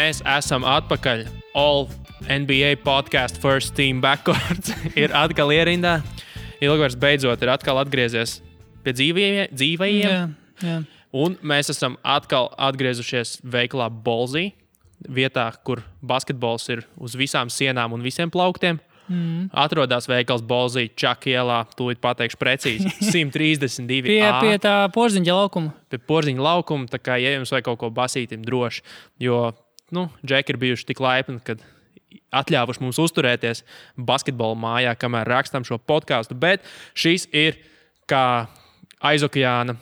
Mēs esam atpakaļ. All NBA podcast first team backcourt ir atkal ierindā. Ilgvars beidzot ir atkal atgriezies pie dzīvajiem. Jā. Un mēs esam atkal atgriezušies veikalā Bolzī, vietā, kur basketbols ir uz visām sienām un visiem plauktiem. Atrodas veikals Bolzī, Čaka ielā, tūlīt pateikšu precīzi, 132 Pie tā Porziņa laukuma. Pie Porziņa laukuma, tā kā, ja jums vajag kaut ko basītim droši, jo, džeki ir bijuši tik laipni, kad atļāvuši mums uzturēties basketbola mājā, kamēr rakstām šo podcastu, bet šis ir, kā aizokeāna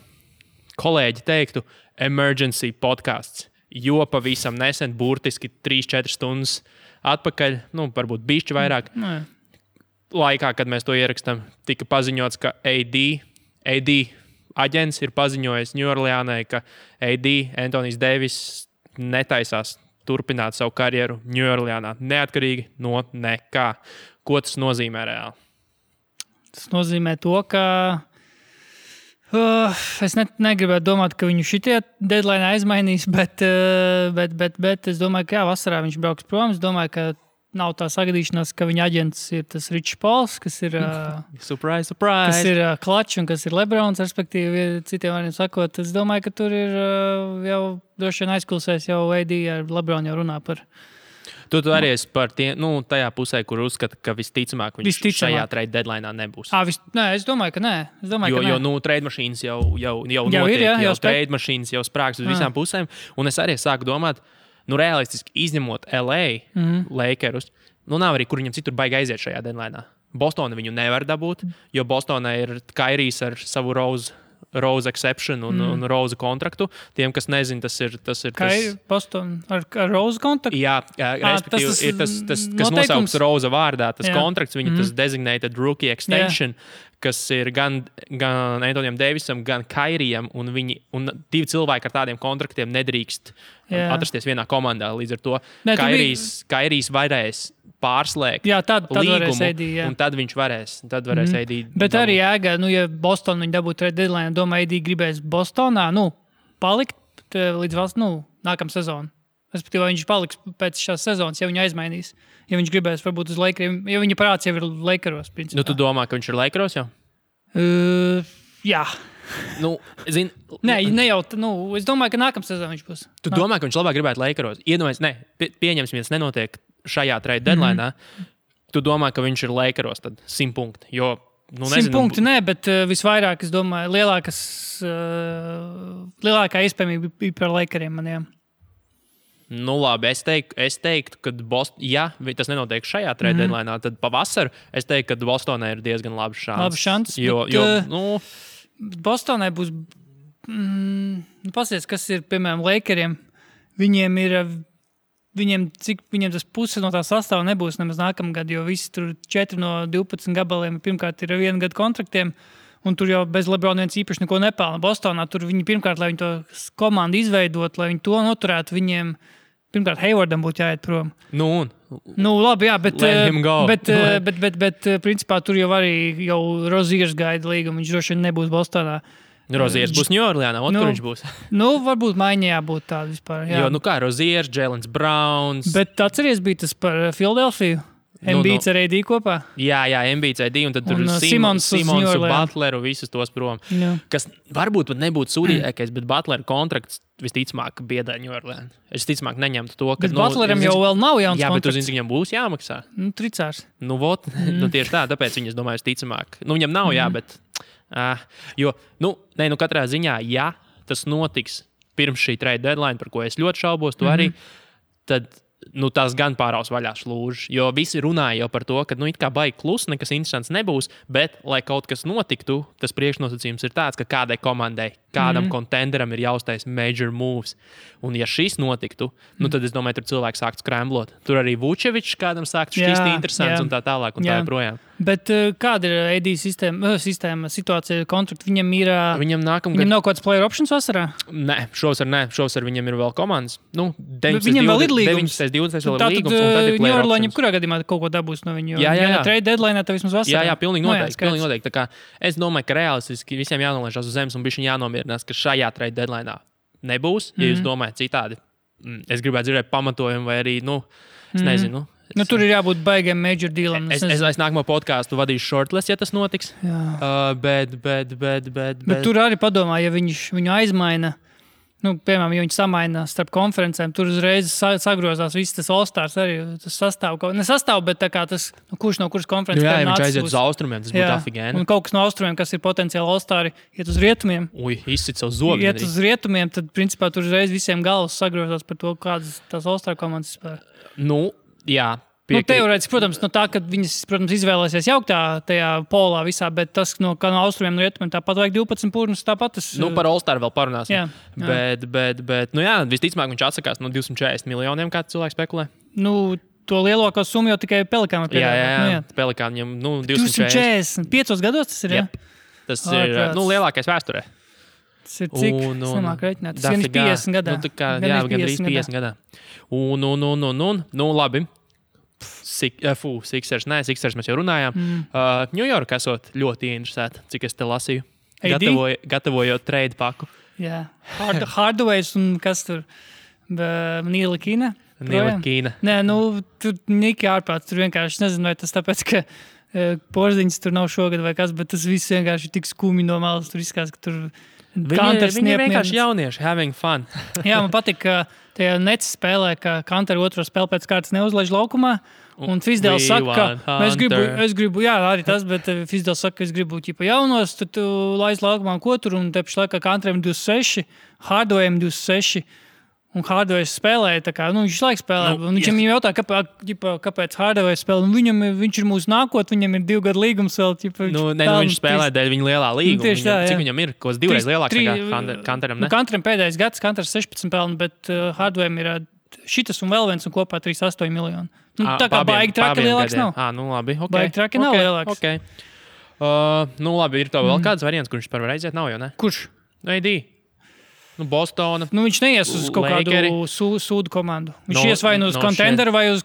kolēģi teiktu, emergency podcasts, jo pavisam nesen, burtiski 3-4 stundas atpakaļ, varbūt bišķi vairāk, laikā, kad mēs to ierakstām, tika paziņots, ka AD aģents ir paziņojis Ņujorlānai, ka Anthony Davis netaisās turpināt savu karjeru Ņujorlānā, neatkarīgi no nekā. Ko tas nozīmē reāli? Tas nozīmē to, ka es negribētu domāt, ka viņu šitie deadline aizmainīs, bet es domāju, ka vasarā viņš brauks prom. Es domāju, ka nav tā sagadīšanās, ka viņa aģents ir tas Ričs Pols, kas ir surprise. Kas ir Klačs un kas ir Lebrons, respektīvi, citiem vārdiem sakot. Es domāju, ka tur ir jau droši vien aizkulsēs jau AD ar Lebronu jau runā par. Tu arī esi par tajā pusē, kur uzskata, ka visticamāk viņš šajā trade deadline'ā nebūs. Nē, es domāju, ka nē. Jo trade mašīnas jau notiek, jau trade mašīnas jau sprāks uz visām pusēm. Un es arī sāku domāt, realistiski izņemot LA Lakerus, nav arī, kur viņam citur baigi aiziet šajā deadline'ā. Bostona viņu nevar dabūt, jo Bostonā ir Kairijs ar savu Rose exception un Rose kontraktu. Tiem, kas nezin, tas ir Boston ar Rose kontraktu? Jā, respektīvi ir tas kas nosaukts Rose vārdā, tas kontrakts, viņa tas designated rookie extension, kas ir gan Anthonyam Davisam, gan Kairijam, un divi cilvēki ar tādiem kontraktiem nedrīkst atrasties vienā komandā. Līdz ar to Kairijs varēs pārslēgt līgumu, un tad viņš varēs AD. Bet arī jēga, ja Boston viņa dabūtu trade deadline, domāju, AD gribēs Bostonā, palikt līdz nākamā sezona. Respektīvi, viņš paliks pēc šās sezonas, ja viņu aizmainīs. Ja viņš gribēs varbūt uz Lakeriem, ja viņa parāds jau ir Lakeros, principā. Tu domā, ka viņš ir Lakeros jau? Jā. Ne jau, es domāju, ka nākamā sezona viņš būs. Tu domā, ka viņš labāk gribētu Lakeros? Pieņemsim, viens nenotiek šajā trade deadline'ā. Tu domā, ka viņš ir Lakeros, tad 100 punkti, jo 100 punkti, bet visvairāk, es domāju, lielākā iespējamība bija par Lakeriem maniem. Labi, es teiktu, ka ja tas nenotiek šajā trade deadline'ā, tad pavasaru es teiktu, ka Bostonai ir diezgan labs šans. Bostonai būs, pasies, kas ir, piemēram, Lakeriem, viņiem tas puse no tā sastāva nebūs nemaz nākamgad, jo visi tur 4 no 12 gabaliem pirmkārt ir 1 gadu kontraktiem, un tur jau bez Lebrona viens īpaši neko nepelna. Bostonā tur viņi pirmkārt, lai viņi to komandu izveidot, lai viņi to noturētu, viņiem pirmkārt Haywardam būtu jāiet prom. Labi, jā, bet principā tur jau arī Roziers gaida līgumu, viņš droši vien nebūs Bostonā. Roziers būs Ņujorlānā, kur viņš būs? Varbūt maiņā būtu tāda vispār. Jā. Jo, kā Roziers, Jaylen Browns. Bet atceries bija tas par Philadelphiju? Embiids ar AD kopā? Jā, Embiids AD, un tad tur Simons Butleru, visus tos prom. Jā. Kas varbūt pat nebūtu sūdīgākais, bet Butleru kontrakts visticamāk biedē Ņujorlānu. Es ticamāk neņemtu to, ka... Bet Butleram jau vēl nav jauns kontrakts. Jā, bet tu zini, viņam būs jāmaksā. Tricārs. Tieši tā, tāpēc viņas domāju ticamāk. Viņam nav bet... katrā ziņā, ja tas notiks pirms šī trade deadline, par ko es ļoti šaubos, tu arī, tad... tās gan pāraus vaļā slūžas, jo visi runāja jau par to, ka it kā baigi klusi, nekas interesants nebūs, bet, lai kaut kas notiktu, tas priekšnosacījums ir tāds, ka kādai komandai, kādam kontenderam ir jāuztais major moves. Un ja šis notiktu, tad es domāju, tur cilvēki sāktu skremblot. Tur arī Vučevičs kādam sāktu šķist interesants un tā tālāk un tā joprojām. Bet kāda ir AD sistēma, situācija, kontrakti? Viņam nav kaut kāds player options vasarā? Nē, šovasar viņam ir vēl komandas. Viņam vēl ir līgums. 20 vēl ir līgums, un tad ir player options. Ņujorlā kurā gadījumā kaut ko dabūs no viņu? Jā. Trade deadline, tad vismaz vasarā. Jā, pilnīgi noteikti. Tā kā es domāju, ka realistiski visiem jānolaižās uz zemes un bišķiņ jānomierinās, ka šajā trade deadline'ā nebūs. Ja jūs domājat citādi, es gribētu dzirdēt pamatojumu vai arī, es nezinu. Tur ir jābūt baigiem major dealam. Es nākamo podkāstu vadīšu shortlist, ja tas notiks. Bet... Tur arī padomā, ja viņu aizmaina, piemēram, ja viņi samaina starp konferencēm, tur uzreiz sagrozās viss tas All-Stars arī. Tas nesastāv, bet tā kā tas, kurš no kuras konferences jā, viņš aiziet uz austrumiem, tas būtu afigēni. Un kaut kas no austrumiem, kas ir potenciāli All-Stari, iet uz rietumiem. Izsit savu zobu. Iet uz rietumiem, tad principā tur uzreiz visiem galvas sagrozās par to, kādas tās All-Star komandas spēlē. Jā. Teorētiski, protams, no tā, ka viņas, protams, izvēlēsies jauktā tajā polā visā, bet tas, kā no austrumiem un rietumiem, tāpat vajag 12 pūrnus, tāpat tas... Par All-Star vēl parunāsim. Jā. Bet, visticamāk viņš atsakās no 240 miljoniem, kā cilvēks spekulē. To lielāko summu jau tikai Pelikānam piedāvā. Jā. Pelikānam, 240. 5 gados tas ir, jā? Tas ir, lielākais vēsturē. Tas ir cik? Es nemāku reiķināt. Tas ir 50 gadā. Gandrīz 50 gadā. Labi. Sixers mēs jau runājām. New York esot ļoti interesēta, cik es te lasīju. Gatavojot trade paku. Jā. Hardways un kas tur? Nīla Kīna? Nē, tur Niki ārprāts. Tur vienkārši nezinu, vai tas tāpēc, ka Porziņas tur nav šogad vai kas, bet tas viss vienkārši tik skumi no malas. Tur izskās, ka tur Viņi vienkārši jaunieši, having fun. Jā, man patīk, ka tajā Nets spēlē, ka Kanter otro spēli pēc kārtas neuzlaiž laukumā. Un Fizdēls saka, ka es gribu, jā, arī tas, bet Fizdēls saka, ka es gribu jaunos, tad tu laiz laukumā ko tur, un te pašlaik Kanteram 26, Hardawayam 26. Un Hardways spēlēja, tā kā, viņš laiks spēlē. Viņam jautā, kāpēc Hardways spēlē. Viņš ir mūsu nākotne, viņam ir 2 gadu līgums vēl. Viņš spēlē dēļ viņa lielā līguma. Cik viņam ir? Kaut 2 reizes lielāks nekā Kanteram, ne? Kanteram pēdējais gads, Kanters 16 pelni, bet Hardwayam ir šitas un vēl viens un kopā 38 miljoni. Tā kā baigi traki lielāks nav. Labi, ok. Baigi traki nav lielāks. Okay. Labi, ir to vēl kāds variants, kurš par var aiziet, nav jau, ne? Kurš? AD. Bostona. Viņš neies uz kaut kādu sūdu komandu. Viņš ies vai uz kontenderu, vai uz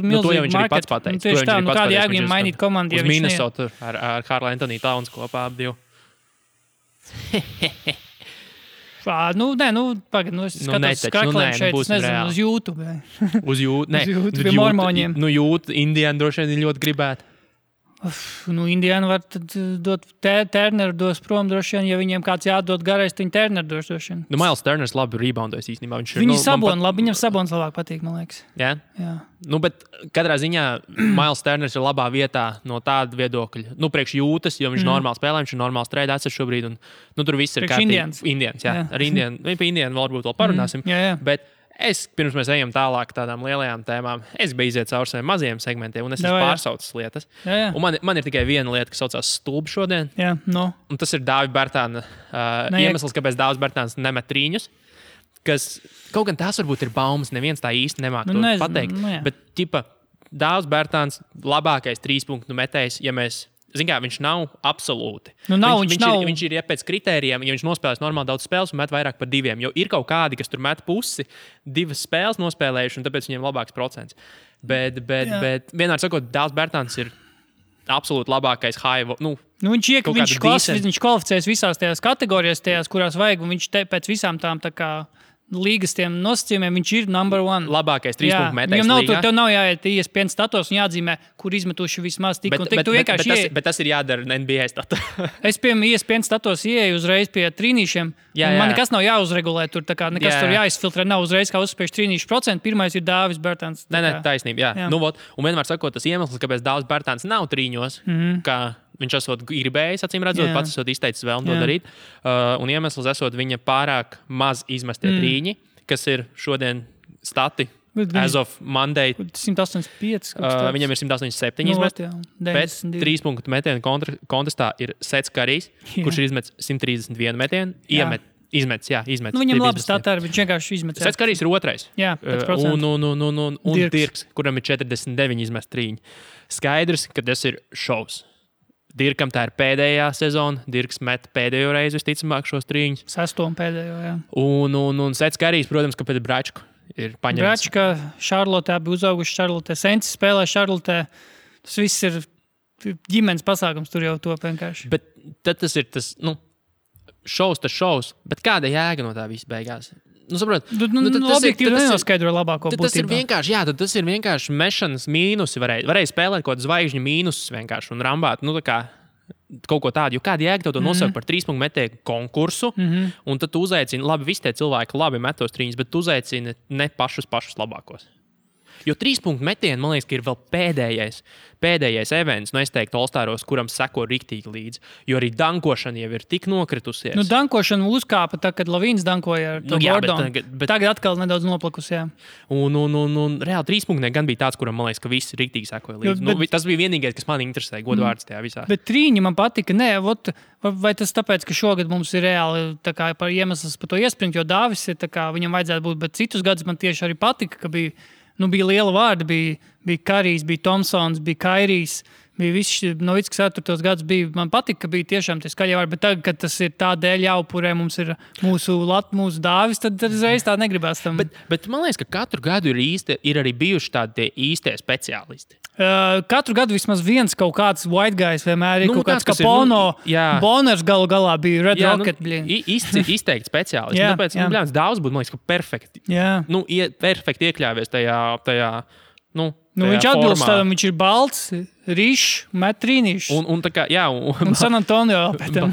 milzīgu marketu. Pats pateicis. Tieši tā, kādi jēgiem mainīt komandu, ja viņš Minnesota ar Karla Anthony Towns kopā ap 2. Pagad, es skatos skraklēm šeit, es nezinu, uz YouTube. Uz YouTube, pie mormoņiem. YouTube, Indiana droši vien ļoti gribētu. Indiana var tad dot Turneru dos prom droši vien, ja viņiem kāds jādod garais, tad viņi Turneru dos droši vien. Miles Turners labi reboundojas īstenībā. Viņi labi, viņam Sabons labāk patīk, man liekas. Jā? Bet katrā ziņā Miles Turners ir labā vietā no tāda viedokļa. Priekš jūtas, jo viņš normāli spēlē, viņš ir normāls trade assets šobrīd, un tur viss ir kārtīgi. Indians, jā. Ar Indianu, par Indianu varbūt vēl parunāsim. Bet pirms mēs ejam tālāk tādām lielajām tēmām, es biju iziet cauri saviem mazajiem segmentiem, un es esmu pārsaucis lietas. Un man ir tikai viena lieta, kas saucās stulbi šodien. Un tas ir Dāvida Bērtāna iemesls, kāpēc Dāvis Bērtāns nemet trīņus. Kas kaut gan tās varbūt ir baumas, neviens tā īsti nemāk to pateikt. Bet, Dāvis Bērtāns labākais 3-punktu metējs, ja mēs... viņš nav absolūti. Viņš ir pēc kritērijiem, ja viņš nospēlēs normāli daudz spēles un met vairāk par 2. Jo ir kaut kādi, kas tur met pusi, 2 spēles nospēlējuši, un tāpēc viņiem labāks procents. Bet vienmēr sakot, Dāvis Bērtāns ir absolūti labākais high. Viņš kvalificēs visās tajās kategorijās, kurās vajag, un viņš pēc visām tām tā kā līgas tiem nosacījumiem, viņš ir number 1. Labākais 3-punktu metējs līgā. Tev nav jāiet ESPN status un jāatzīmē, kur izmetuši vismaz tik un tik. Bet tas ir jādara NBA status. Es piemēram ESPN status ieeju uzreiz pie trīnīšiem. Man nekas nav jāuzregulē tur, tā kā nekas tur jāizfiltrē. Nav uzreiz kā uzspējuši trīnīšu procentu. Pirmais ir Dāvis Bērtāns. Nē, taisnība, jā. Un vienmēr sakot, tas iemesls, kāpēc Dāvis Bērtāns nav trīņos, kā viņš esot gribējis, acīm redzot, pats esot izteicis vēlmu to darīt. Un iemesls esot viņa pārāk maz izmestie trīņi, kas ir šodien stati as of Monday. 185. Viņam ir 187 izmesti. Pēc 3-punktu metienu kontestā ir Sets Karijs, kurš ir izmetis 131 metienu. Izmetis. Viņam labi statā, viņš vienkārši izmetis. Sets Karijs ir 2. Jā, un Dirks, kuram ir 49 izmesti trīņi. Skaidrs, ka tas ir šovs. Dirkam tā ir pēdējā sezona. Dirks met pēdējo reizi, visticamāk, šos trīņus. 6. pēdējo, jā. Un Sets Karijs, protams, ka pēc Bračku ir paņemts. Bračka, Šarlotē bija uzauguši Šarlotē. Sensis spēlē Šarlotē. Tas viss ir ģimenes pasākums, tur jau to vienkārši. Bet tad tas ir tas, šovs, bet kāda jēga no tā viss beigās? Objektīvi nenoskaidro labāko būtību. Tas ir vienkārši, tas ir vienkārši mešanas mīnusi. Varēja spēlēt kaut kādu zvaigžņu mīnusus vienkārši un rambāt. Tā kā kaut ko tādu, jo kāda jēga tev to nosaukt par 3 punktu metēju konkursu, un tad tu uzaicini, labi, visi tie cilvēki labi metos trīņus, bet tu uzaicini ne pašus labākos. Jo 3 punktu metieni, man liekas, ka ir vēl pēdējais events, es teiktu, All-Staros, kuram seko riktīgi līdzi. Jo arī dankošana jau ir tik nokritusies. Dankošana uzkāpa, kad Lavīns dankoja ar to Gordonu. Tagad atkal nedaudz noplakus, jā. Un reāli 3 punkti gan bija tāds, kuram, man liekas, ka visi riktīgi sekoja līdzi. Tas bija vienīgais, kas man interesēja, godvārds tajā visā. Bet trīņi man patika, vai tas tāpēc, ka šogad mums ir reāli par iemesls par to iespringt, jo Dāvis ir viņam vajadzētu būt, bet citus gadus man tieši arī patika, ka bija liela vārda, bija Karijs, bija Tomsons, bija Kairijs, bija viss Novickis tos gadus bija. Man patika, ka bija tiešām tie skaļie vārdi, bet tagad, kad tas ir tādēļ jāupurē, mums ir mūsu Dāvis, tad uzreiz tā negribās tam. Bet man liekas, ka katru gadu ir arī bijuši tādi īstie speciālisti. Katru gadu vismaz viens kaut kāds white guys vienmēr ir kaut kāds Kapono, Boners galā bija Red Rocket. Izteikti speciālisti. Tāpēc, Dāvis būtu, man liekas, ka perfekti. Perfekti iekļāvies tajā viņš atbilst tādam, viņš ir balts, rīšs, met trīnīšs. Un San Antonio pēc tam.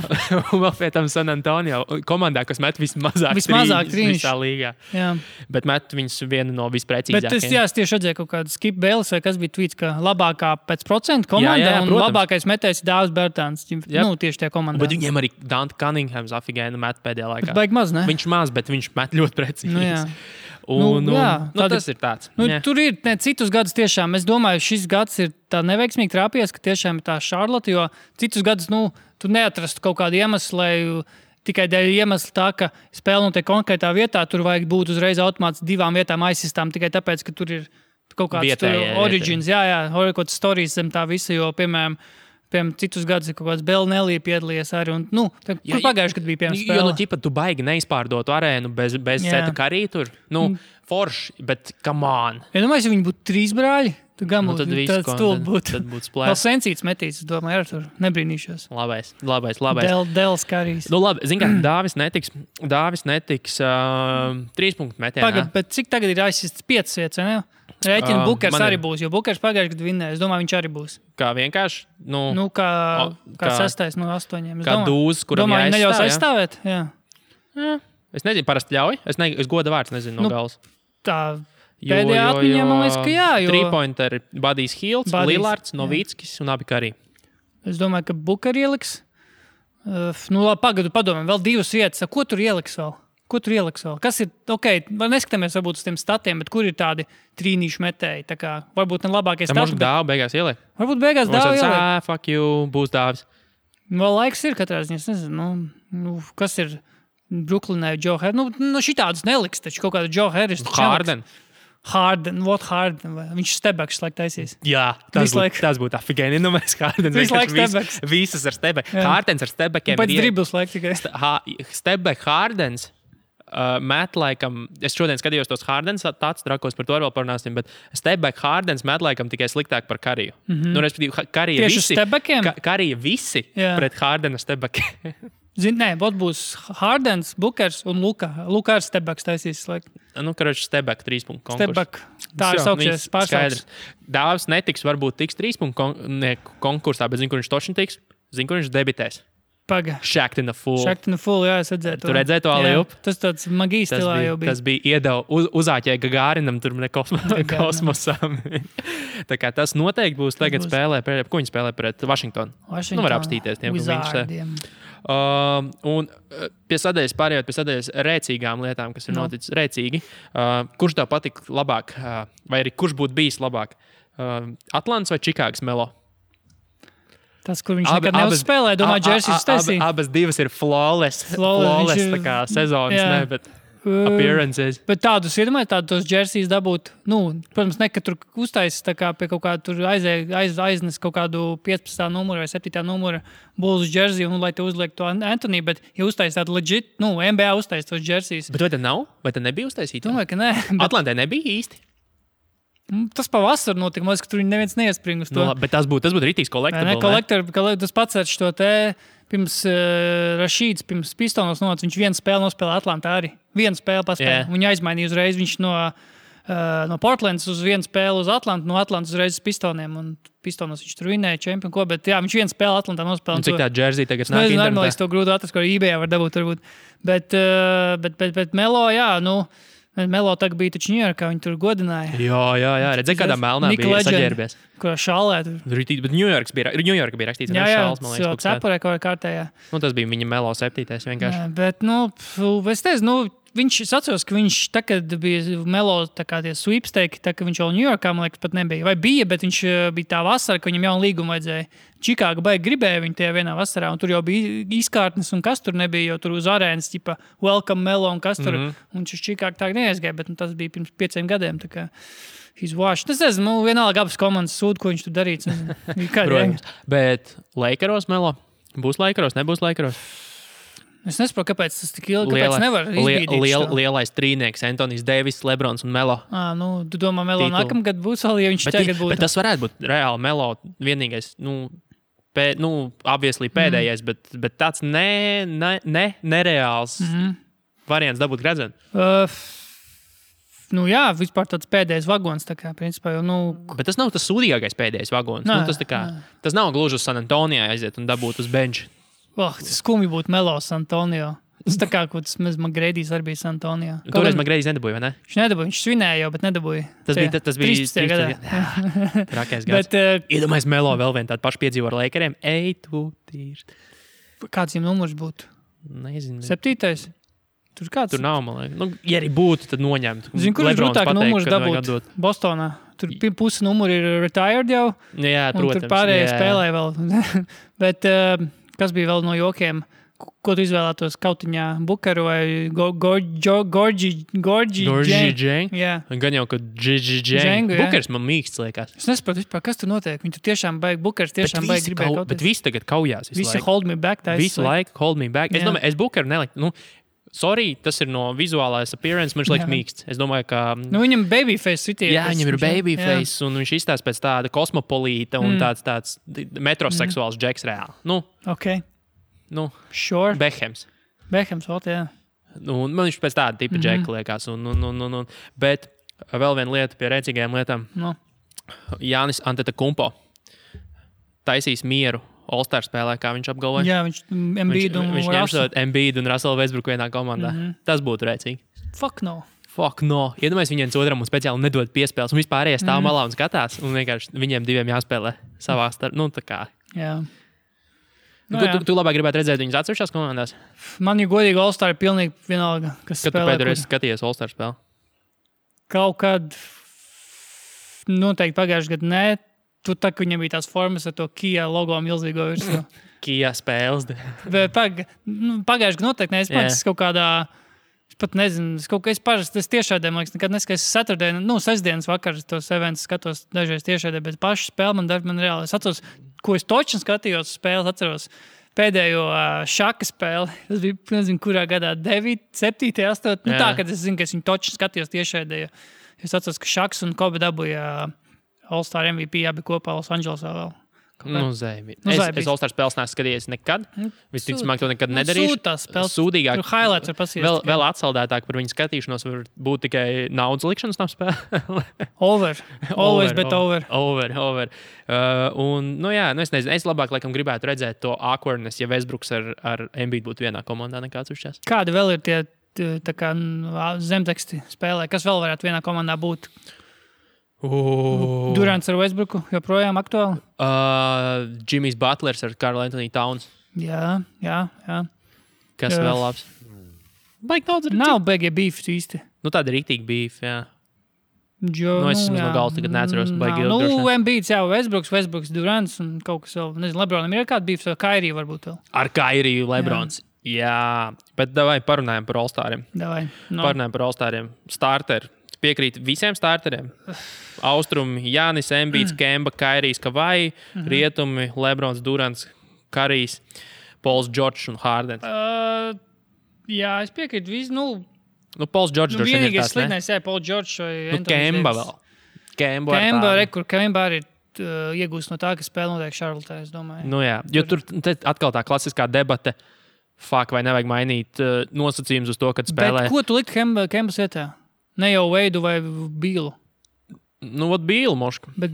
Un vēl pēc tam San Antonio komandā, kas met vismazāk trīnīšs visā līgā. Jā. Bet met viņus vienu no visprecīzākajiem. Bet es tieši redzēju kaut kādu Skip Bayless, vai kas bija tweets, ka labākā pēc procentu komanda un labākais metējs ir Dāvis Bertāns. Tieši tie komandā. Bet viņiem arī Dante Cunninghams afigēna met pēdējā laikā. Bet baigi maz, ne? Viņš maz, bet viņš met ļoti precīzi. Tas ir tāds. Tur ir citus gadus tiešām. Es domāju, šis gads ir tā neveiksmīgi trāpījies, ka tiešām ir tā Charlotte, jo citus gadus tu neatrastu kaut kādu iemeslu, lai tikai dēļ iemesla tā, ka spēle notiek konkrētā vietā, tur vajag būt uzreiz automāts 2 vietām aizsistām tikai tāpēc, ka tur ir kaut kāds origins, kaut kāds stories zem tā visa, jo, piemēram, citus gadus ir kaut kāds Belnelī piedalījies arī. Kur pagājuši, kad bija piemēram spēle? Jo, tu baigi neizpārdotu arēnu bez Seta Karī tur. Forši, bet come on. Domāju, ja viņi būtu 3 brāļi, tad tāds stulbi būtu. Tad būtu splēs. Vēl Sensīts metīs, es domāju, ar tur nebrīnīšos. Labais. Dēls Karīs. Labi, zin kā, Dāvis netiks 3 punktu metienā. Pagad, bet cik tagad ir aizsists 5 vietas, ne? Rēķina Bukers arī būs, jo Bukers pagājuši, kad vinnēja. Es domāju, viņš arī būs. Kā vienkārši? Kā 6. no 8. Kā dūzs, kuram jāaizstāv. Domāju, neļaus aizstāvēt? Jā. Es nezinu, parasti ļauj. Es goda vārds nezinu no galas. Tā pēdējā atmiņā, man liekas, ka jā. 3-pointeri Budijs Hields, Lillards, Novickis un abi Karī. Es domāju, ka Buker ieliks. Labi, pagadu padomāju, vēl 2 vietas. Ko tur ieliks vēl? Kas ir, neskatāmies varbūt uz tiem statiem, bet kur ir tādi trīnīšu metēji? Tā kā varbūt ne labākais stati. Varbūt Dāvu beigās ieliek. Varbūt beigās Dāvu ieliek. Fuck you, būs Dāvis. Vēl laiks ir katrā ziņā, es nezinu, kas ir Brooklynai Joe Harris. Šitādus neliks, taču kaut kādu Joe Harris. Harden. Viņš stebeks laik taisīs. Jā, tas būtu afigēni. Mēs Hardens vienkārši visas ar stebeku. Hardens ar stebekiem. Pēc dribbles laik tikai. Stebek Hardens. Met laikam, es šodien skatījos tos Hardens tāds trakos, par to vēl parunāsim, bet Stebek Hardens met laikam tikai sliktāk par Kariju. Respektīvi, Karija visi pret Hardena Stebekiem. Būs Hardens, Bukers un Luka. Luka ar Stebeks taisīs. Stebek 3 punktu konkursu. Stebek. Tā ir saukšies pārsauks. Dāvis netiks, varbūt tiks 3 punktu konkursā, bet zinu, kur viņš toši tiks. Zinu, kur viņš debitēs. Paga. Shacked in a Fool, jā, es redzēju to. Tu redzēji to alley-oop? Tas tāds magijas stilā jau bija. Tas bija iedeva uzāķēja Gagārinam, tur ne kosmosam. Tā kā tas noteikti būs tagad spēlē, ko viņi spēlē pret Washingtonu. Var apstīties tiem, ko viņš un pie sadaļas rēcīgām lietām, kas ir noticis rēcīgi. Kurš tev patika labāk, vai arī kurš būtu bijis labāk? Atlants vai Čikāgas Melo? Tas, kur viņš nekad neuzspēlē, domāju, Džersijs taisīja. Abas divas ir flawless tā kā sezonas, bet appearances. Bet tādus iedomājies, tos Džersijs dabūt, protams, ne, ka tur uztaisīs tā kā pie kaut kāda tur aiznes kaut kādu 15. numuru vai 7. numuru Bulls Džersiju, lai te uzliek to Anthony, bet ja uztaisīs tādu legit, NBA uztaisīs tos Džersijs. Bet vai te nav? Vai te nebija uztaisīta? Domāju, ka nē. Atlantē nebija īsti? Tas pavasar notika, ka tur neviens neiespring uz to. Bet tas būtu rītīgs collectible. Tas pats ar šo te pirms Rašīds, pirms Pistonos nonāca, viņš vienu spēli nospēlē Atlantā arī. Vienu spēli paspēja. Viņu aizmainīja uzreiz. Viņš no Portlandas uz vienu spēli uz Atlantu, no Atlantas uzreiz uz Pistoniem. Un Pistonos viņš tur vinēja čempionu, ko, bet jā, viņš vienu spēli Atlantā nospēlēja. Un cik tā džersija tagad nāk internetā? Nezinu, es to grūti atrast, ko eBayā var dabūt varbūt. Bet Melo, jā, Melo tagad bija taču Ņujorkā, viņi tur godināja. Jā. Redzēju, kādā melnā bija saģērbies. Kurā šālē tur. Bet Ņujorka bija rakstīts. Jā, cepurē kaut kā kārtējā. Tas bija viņa Melo 7. vienkārši. Jā, bet, es teicu, viņš atceros, ka viņš tagad bija Melo tā kā tie sweepstake, tā ka viņš vēl Ņujorkā, man liekas, pat nebija. Vai bija, bet viņš bija tā vasara, ka viņam jaunu līgumu vajadzēja. Čikāga baigi gribēja viņu tajā vienā vasarā, un tur jau bija izkārtnes, un kas tur nebija, jo tur uz arēnas, tipa, welcome Melo, un kas tur, un viņš uz Čikāgu tā neaizgāja, bet tas bija pirms 5 gadiem, tā kā he's washed. Es nezinu, vienalga abas komandas sūd, ko viņš tur darīts. Bet Lakeros Melo? Būs Lakeros, nebūs Lakeros? Es nesaprotu, kāpēc tas tik ilgi, kāpēc nevar izbīdīt. Lielais trīnieks, Antonijs Deivis, Lebrons un Melo. Tu domā, Melo nākamgad būs vēl, ja viņš tagad būtu. Bet tas varētu būt reāli Melo vienīgais, obviously pēdējais, bet tāds nereāls variants dabūt gredzenu. Jā, vispār tāds pēdējais vagons, tā kā, principā, Bet tas nav tas sūdīgākais pēdējais vagons. Tas nav gluži uz San Antonio aiziet un dabūt uz benču. Tas skumji būtu Melo San Antonio. Tas tā kā, ko tas Magreidijs arī bija San Antonio. Toreiz Magreidijs nedabūja, vai ne? Viņš nedabūja, viņš svinēja jau, bet nedabūja. Tas bija 13. gadā. Trakais gads. Iedomājies Melo vēl vien tādu pašu piedzīvo ar Lakeriem. Kāds viņam numurs būtu? Nezinu. 7. Tur kāds? Tur nav, man liekas. Ja arī būtu, tad noņemt. Zinu, kur ir grūtāk numurs dabūt Bostonā? Tur pusi numuri ir retired jau. Jā, protams. Tur pārējie spēlē vēl. Bet kas bija vēl no jokiem? Ko tu izvēlētos kautiņā? Bukaru vai Gorgi Dženg? Jā. Gan jau, ka Dženg. Bukars man mīksts liekas. Es nesaprotu vispār, kas tur notiek. Viņi tur tiešām baigi, Bukars tiešām baigi gribēja kauties. Bet visi tagad kaujās. Visi hold me back. Visu laiku hold me back. Es domāju, es Bukaru neliktu. Sorry, tas ir no vizuālais appearance, man liekas mīksts. Es domāju, ka... viņam babyface citie. Jā, viņam ir babyface, un viņš izstāsta pēc tāda kosmopolīta un tāds metroseksuāls džeks reāli. Ok. Sure. Behems, jā. Man viņš pēc tāda tipa džeka liekas. Bet vēl viena lieta pie rēcīgajām lietām. Jānis Antetokounmpo taisīs mieru All-Star spēlē, kā viņš apgalvoja. Jā, viņš Embiid un Russell Westbrook vienā komandā. Tas būtu rēcīgi. Fuck no. Iedomājies viņiem otram un speciāli nedod piespēles. Un vispārējie stāv malā un skatās. Un vienkārši viņiem diviem jāspēlē savā starpā. Tā kā. Jā. Tu labāk gribētu redzēt viņus atsevišķās komandās? Man, ja godīgi, All-Star ir pilnīgi vienalga, kas spēlē. Kad tu pēdējais skatījies All-Star spēli? Kaut kad noteikti pagājušajā gadā nē. Tu tā, ka viņam bija tās formas ar to Kia logo milzīgo virsmu. Kia spēles. Pagājušajā gadā noteikti nē. Es kaut kādā... Es pat nezinu, es parasti tiešādē, man liekas, nekad neskaidrs sestdienas vakarā tos eventus skatos dažreiz tiešādē, bet pašu spēli man reāli. Es atceros, ko es točni skatījos spēles, atceros pēdējo šaka spēli. Tas bija, nezinu, kurā gadā, 9, 7, 8. Tā, kad es zinu, ka es viņu točni skatījos tiešādē. Es atceros, ka Šaks un Kobe dabūja All-Star MVP abi kopā Los Andželosā vēl. Es All-Star spēles neesmu skatījies nekad. Visticamāk, to nekad nedarīšu. Sūdīgāk. Highlights var pasies. Vēl atsaldētāk par viņu skatīšanos var būt tikai naudas likšanas nav spēle. Over. Always bet over. Over. Es nezinu. Es labāk laikam gribētu redzēt to awkwardness, ja Westbrooks ar Embiid būtu vienā komandā nekā atsevišķās. Kādi vēl ir tie tā kā zemteksti spēlē? Kas vēl varētu vienā komandā būt? Durants ar Westbrooku joprojām aktuāli? Jimmys Butlers ar Karl Anthony Towns. Jā. Kas vēl labs? Baigi daudz arī. Nav beigie beef īsti. Tāda rīktīgi beef, jā. Es no galvas tagad neatceros. Embiids, jā, Westbrooks, Durants un kaut kas vēl. Nezinu, Lebronam ir kāda beef, vai Kairiju varbūt vēl. Ar Kairiju Lebrons. Jā. Bet davai parunājam par All-Stariem. Parunājam par All-Stariem. Starter. Piekrīt visiem starteriem. Austrumi, Jānis, Embiids, Kemba, Kairijs, Kavai, Rietumi, Lebrons, Durants, Karijs, Pols Džordžs un Hārdens. Jā, es piekrītu visu. Pols Džordžs droši vien ir vienīgais slidnais, jā, Pols Džordžs vai Kemba vēl. Kemba arī iegūst no tā, ka spēle notiek Šarlotē, es domāju. Jā, jo tur atkal tā klasiskā debate. vai nevajag mainīt nosacījumus uz to, kad spēlē. Bet ko tu likt Kembas vietā? Ne jau Veidu vai Bīlu? Nu, vat Bīlu mošku. Bet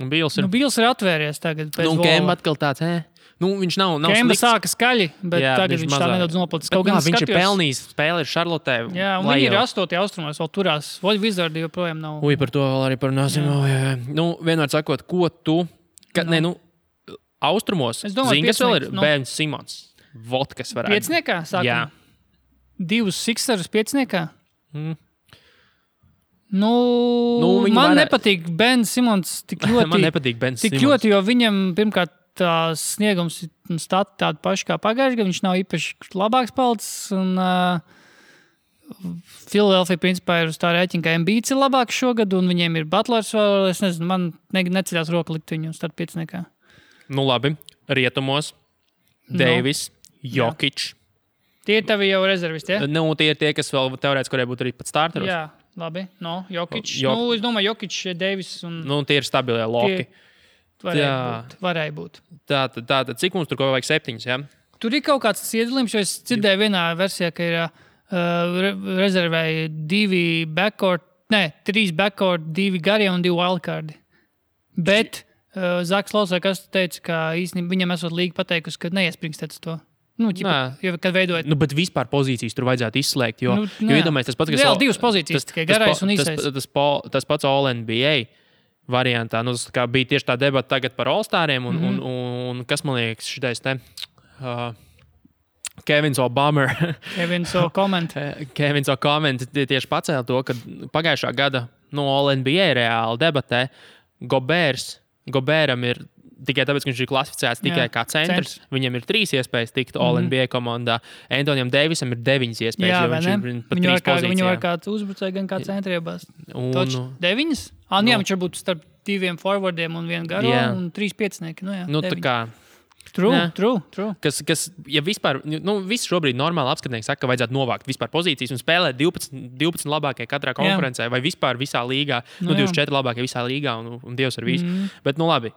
Bīls ir. Bīls ir atvēries tagad. Kemba atkal tāds, Nu, viņš nav Kemba slikts. sāka skaļi, bet Jā, tagad viņš tā nedaudz noplacis. Bet, viņš ir pelnījis spēli ar Šarlotē. Jā, un viņi ir 8. austrumos, vēl turās. Voļ Vizardi joprojām nav. Par to vēl arī parunāsim. Nu, vienmēr sakot, ko tu... Austrumos. Zini, kas vēl ir? Bērns Simons. Vot, kas varētu. Piecniekā sākumā? Jā. 2 Sixers piecniekā? Man nepatīk Ben Simons tik ļoti. Man nepatīk Ben Simons. Tik ļoti, jo viņam pirmkārt tās sniegums un stati tādi paši kā pagājuši, ka viņš nav īpaši labāks palicis. Un Philadelphia principā ir uz tā rēķina, ka Embiids ir labāks šogad, un viņiem ir Butlers vēl. Es nezinu, man neceļās roka likt viņu start piecniekā. Nu labi, rietumos. Deivis, Jokic. Tie ir tavi jau rezervisti, ja? Nu, tie ir tie, kas vēl teorētiski varēja būt arī pat starteros. Jā, labi. Jokic. Es domāju, Jokic, Deivis un... tie ir stabilie loki. Varēja būt. Tātad, cik mums tur vajag 7, ja? Tur ir kaut kāds iedalījums, jo es dzirdēju vienā versijā, ka ir rezervēja 3 backcourt, 2 garie un 2 wildcardi. Bet Zaks Lausē, kas teica, ka īstenībā viņam esot līga pateikusi, ka neiesprinkstēc to. Kad veidojat. Bet vispār pozīcijas tur vajadzētu izslēgt, jo iedomājies tas pats, kas... Vēl 2 pozīcijas, tikai garais un īsais. Tas pats All-NBA variantā. Tas bija tieši tā debata tagad par All-Stariem un kas man liekas šitais te... Kevins O'Bummer. Kevins O'Comment tieši pacēla to, ka pagājušā gada All-NBA reāli debatē Goberam ir tikai tāpēc, ka viņš ir klasificēts tikai kā centrs. Viņam ir 3 iespējas tikt All-NBA komandā. Antonijam Deivisam ir 9 iespējas, jo viņš ir pat 3 pozīcijā. Viņu var kā uzbrucēji, gan kā centri iebāzt. Toč 9? Jā, viņš var būt starp 2 forwardiem un 1 garo un 3 piecinieki. Tā kā... True. Kas, ja vispār, visi šobrīd normāli apskatnieki saka, ka vajadzētu novākt vispār pozīcijas un spēlēt 12 labākie katrā konferencē vai vispār visā līgā. 24 labākie visā līgā un Dievs ar visu. Bet, labi,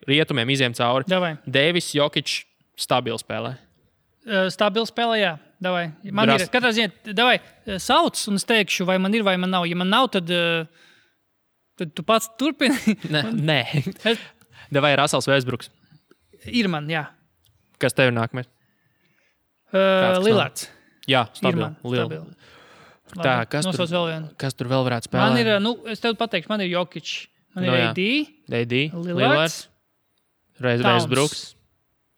rietumiem iziem cauri. Davai. Deivis, Jokic, stabili spēlē. Stabili spēlē, jā. Davai. Man ir, katrā ziņā, davai, sauc un es teikšu, vai man ir, vai man nav. Ja man nav, tad tu pats turpini. Nē. Davai, Rasels Westbrooks. Ir man, jā. Kas tev ir nākamais? Lillards. Jā, stabili. Tā, kas tur vēl varētu spēlēt? Man ir, es tev pateikšu, man ir Jokic. Man ir AD. Lillards. Westbrooks.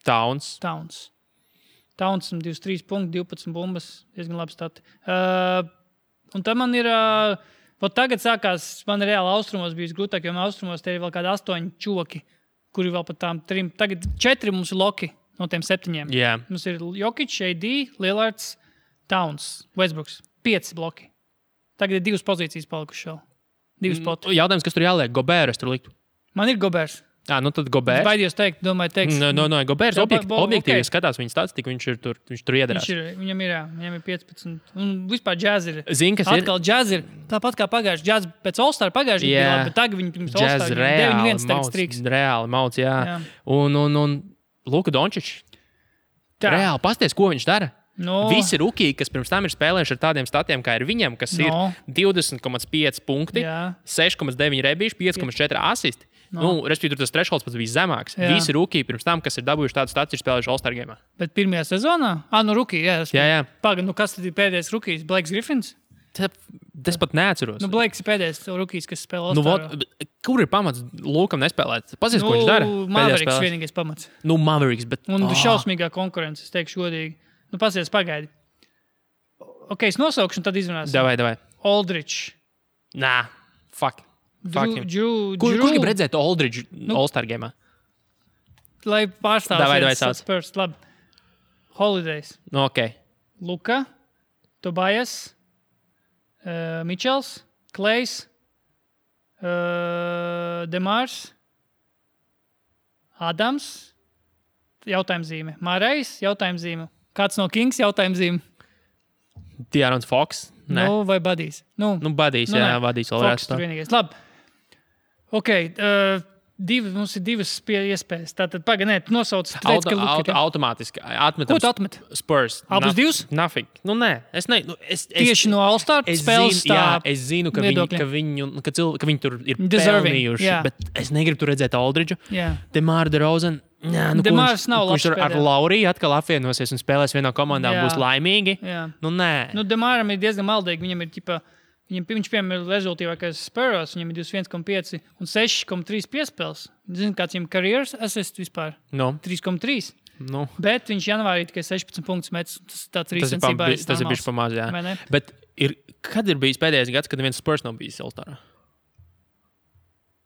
Towns. Towns 23 punkti, 12 bumbas. Diezgan labi stati. Un tad man ir... Tagad sākās, man ir reāli austrumos bijis grūtāk, jo austrumos te ir vēl kādi 8 čoki. Kuri vēl pat tām 3. Tagad 4 mums ir loki no tiem 7. Yeah. Mums ir Jokic, AD, Lillards, Towns, Westbrooks. 5 bloki. Tagad ir 2 pozīcijas palikušas vēl. 2 spoti. Jautājums, kas tur jāliek? Gobērs tur likt? Man ir Gobērs. Tad Gobērs. Es baidījos teikt, teiks. Gobērs objektīvi skatās viņa statistiku, viņš tur iedarās. Viņam ir 15. Un vispār džaz ir. Zini, kas atkal džaz ir. Tāpat kā pagājuši džaz pēc All-Star pagājuši bija labi, bet tagad viņi pirms All-Star 9-1 tagad striks. Reāli mauc, jā. Un Luka Dončić. Reāli, pasties, ko viņš dara. Visi rukiji, kas pirms tam ir spēlējuši ar tādiem statiem, kā ir viņam, kas ir 20,5 punkti, 6,9 rebīši, 5,4 asisti. Respektīvi, tur tas thresholds pats bija zemāks. Jā. Visi rukiji pirms tam, kas ir dabūjuši tādu statu, ir spēlējuši All-Star gamā. Bet pirmajā sezonā? Rukiji, jā. Jā. Pagaid, kas tad ir pēdējais rukijs? Blakes Griffins? Es pat neatceros. Blakes ir pēdējais rukijs, kas spēlē All-Star. Kur ir pamats Lukam nespēlēt? Pasies, ko viņš dara? Mavericks vienīgais pamats. Mavericks, bet... Un šausmīgā konkurence, es teikšu godīgi. Pasies, pagaidi. Es nosaukšu, un tad izrunāsim. Davai. Aldridge. Fuck. Kur grib redzēt Aldridge All-Star gamā? Lai pārstāvs Spurs. Labi. Holidays. Luka, Tobias, Mitchells, Klejs, Demārs, Adams, jautājumzīme. Mārējs, jautājumzīme. Kāds no Kings, jautājumzīme. De'Aaron Fox. Vai Buddies? Buddies, jā, Buddies vēl Fox tur vienīgais. Labi. Mums ir divas iespējas. Tātad, pagaidi, tu nosauc automātiski atmetam. Ko tu atmet? Spurs. Abas divas? Nothing. Nē, es ne. Tieši no All-Star spēles tā. Es zinu, ka viņi tur ir pelnījuši, bet es negribu tur redzēt Aldridžu. Demāra DeRozan. Demārs nav labs. Viņš tur ar Lauriju atkal apvienosies un spēlēs vienā komandā un būs laimīgi. Nē. Demāram ir diezgan maldīgi. Viņam ir viņš, piemēram, ir rezultīvākais Spurs, viņam ir 21,5 un 6,3 piespēles. Zini, kāds viņam karjeras assist vispār? 3,3. Bet viņš janvārī tikai 16 punktus met. Tas ir bišķi pamaz, jā. Bet kad ir bijis pēdējais gads, kad neviens Spurs nav bijis All-Starā?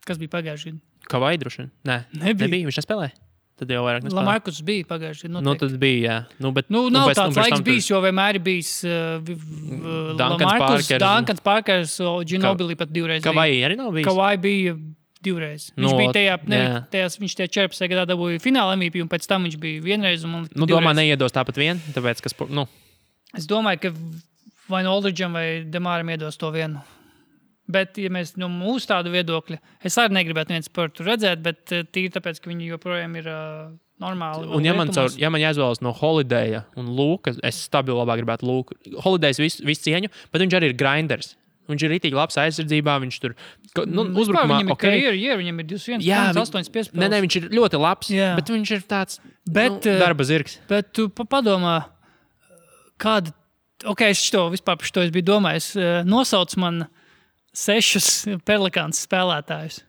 Kas bija pagājuši gadu? Kavai droši vien? Nē, nebija. Viņš nespēlēja. Tad jau vairāk nespēlēja. Lamarcus bija pagājuši gadu. Tad bija, jā. Nav tāds laiks bijis, jo vienmēr ir bijis Lamarcus, Duncans Parkers, Ginobili pat divreiz. Kavai arī nav bijis? Kavai bija divreiz. Viņš bija viņš tajā 14. gadā dabūja fināla MVP, un pēc tam viņš bija vienreiz. Domā, neiedos tāpat vien? Tāpēc, Es domāju, ka vai no Aldridžam vai Demāram iedos to vienu. Bet, ja mēs no mūsu tādu viedokļa, es arī negribētu viens par to redzēt, bet tīri tāpēc, ka viņi joprojām ir normāli. Un ja man jāizvēlas no Holidaya un Lūka, es stabili labāk gribētu Lūku. Holidays visu cieņu, bet viņš arī ir grinders. Viņš ir ritīgi labs aizsardzībā, viņš tur uzbrukumā. Viņam ir karjeru, viņam ir 21,8 piespēles. Nē, viņš ir ļoti labs, bet viņš ir tāds darba zirgs. Bet tu padomā, kāda, es vispār par šo biju domājis, nosauc man 6 Pelikāns spēlētājus.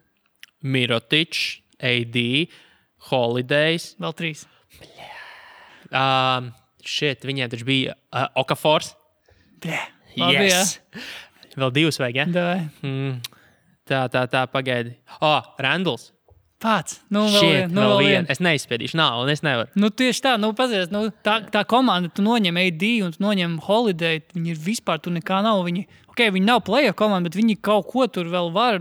Mirotičs, AD, Holidays. Vēl 3. Viņiem taču bija Okafors. Yes. Vēl 2 vajag, ja? Tā, pagaidi. Randalls. Pats. Vēl vien. Es neizspēdīšu, un es nevaru. Tieši tā, pazies, tā komanda, tu noņem AD un tu noņem Holiday, viņi ir vispār, tu nekā nav, viņi nav playoff komanda, bet viņi kaut ko tur vēl var,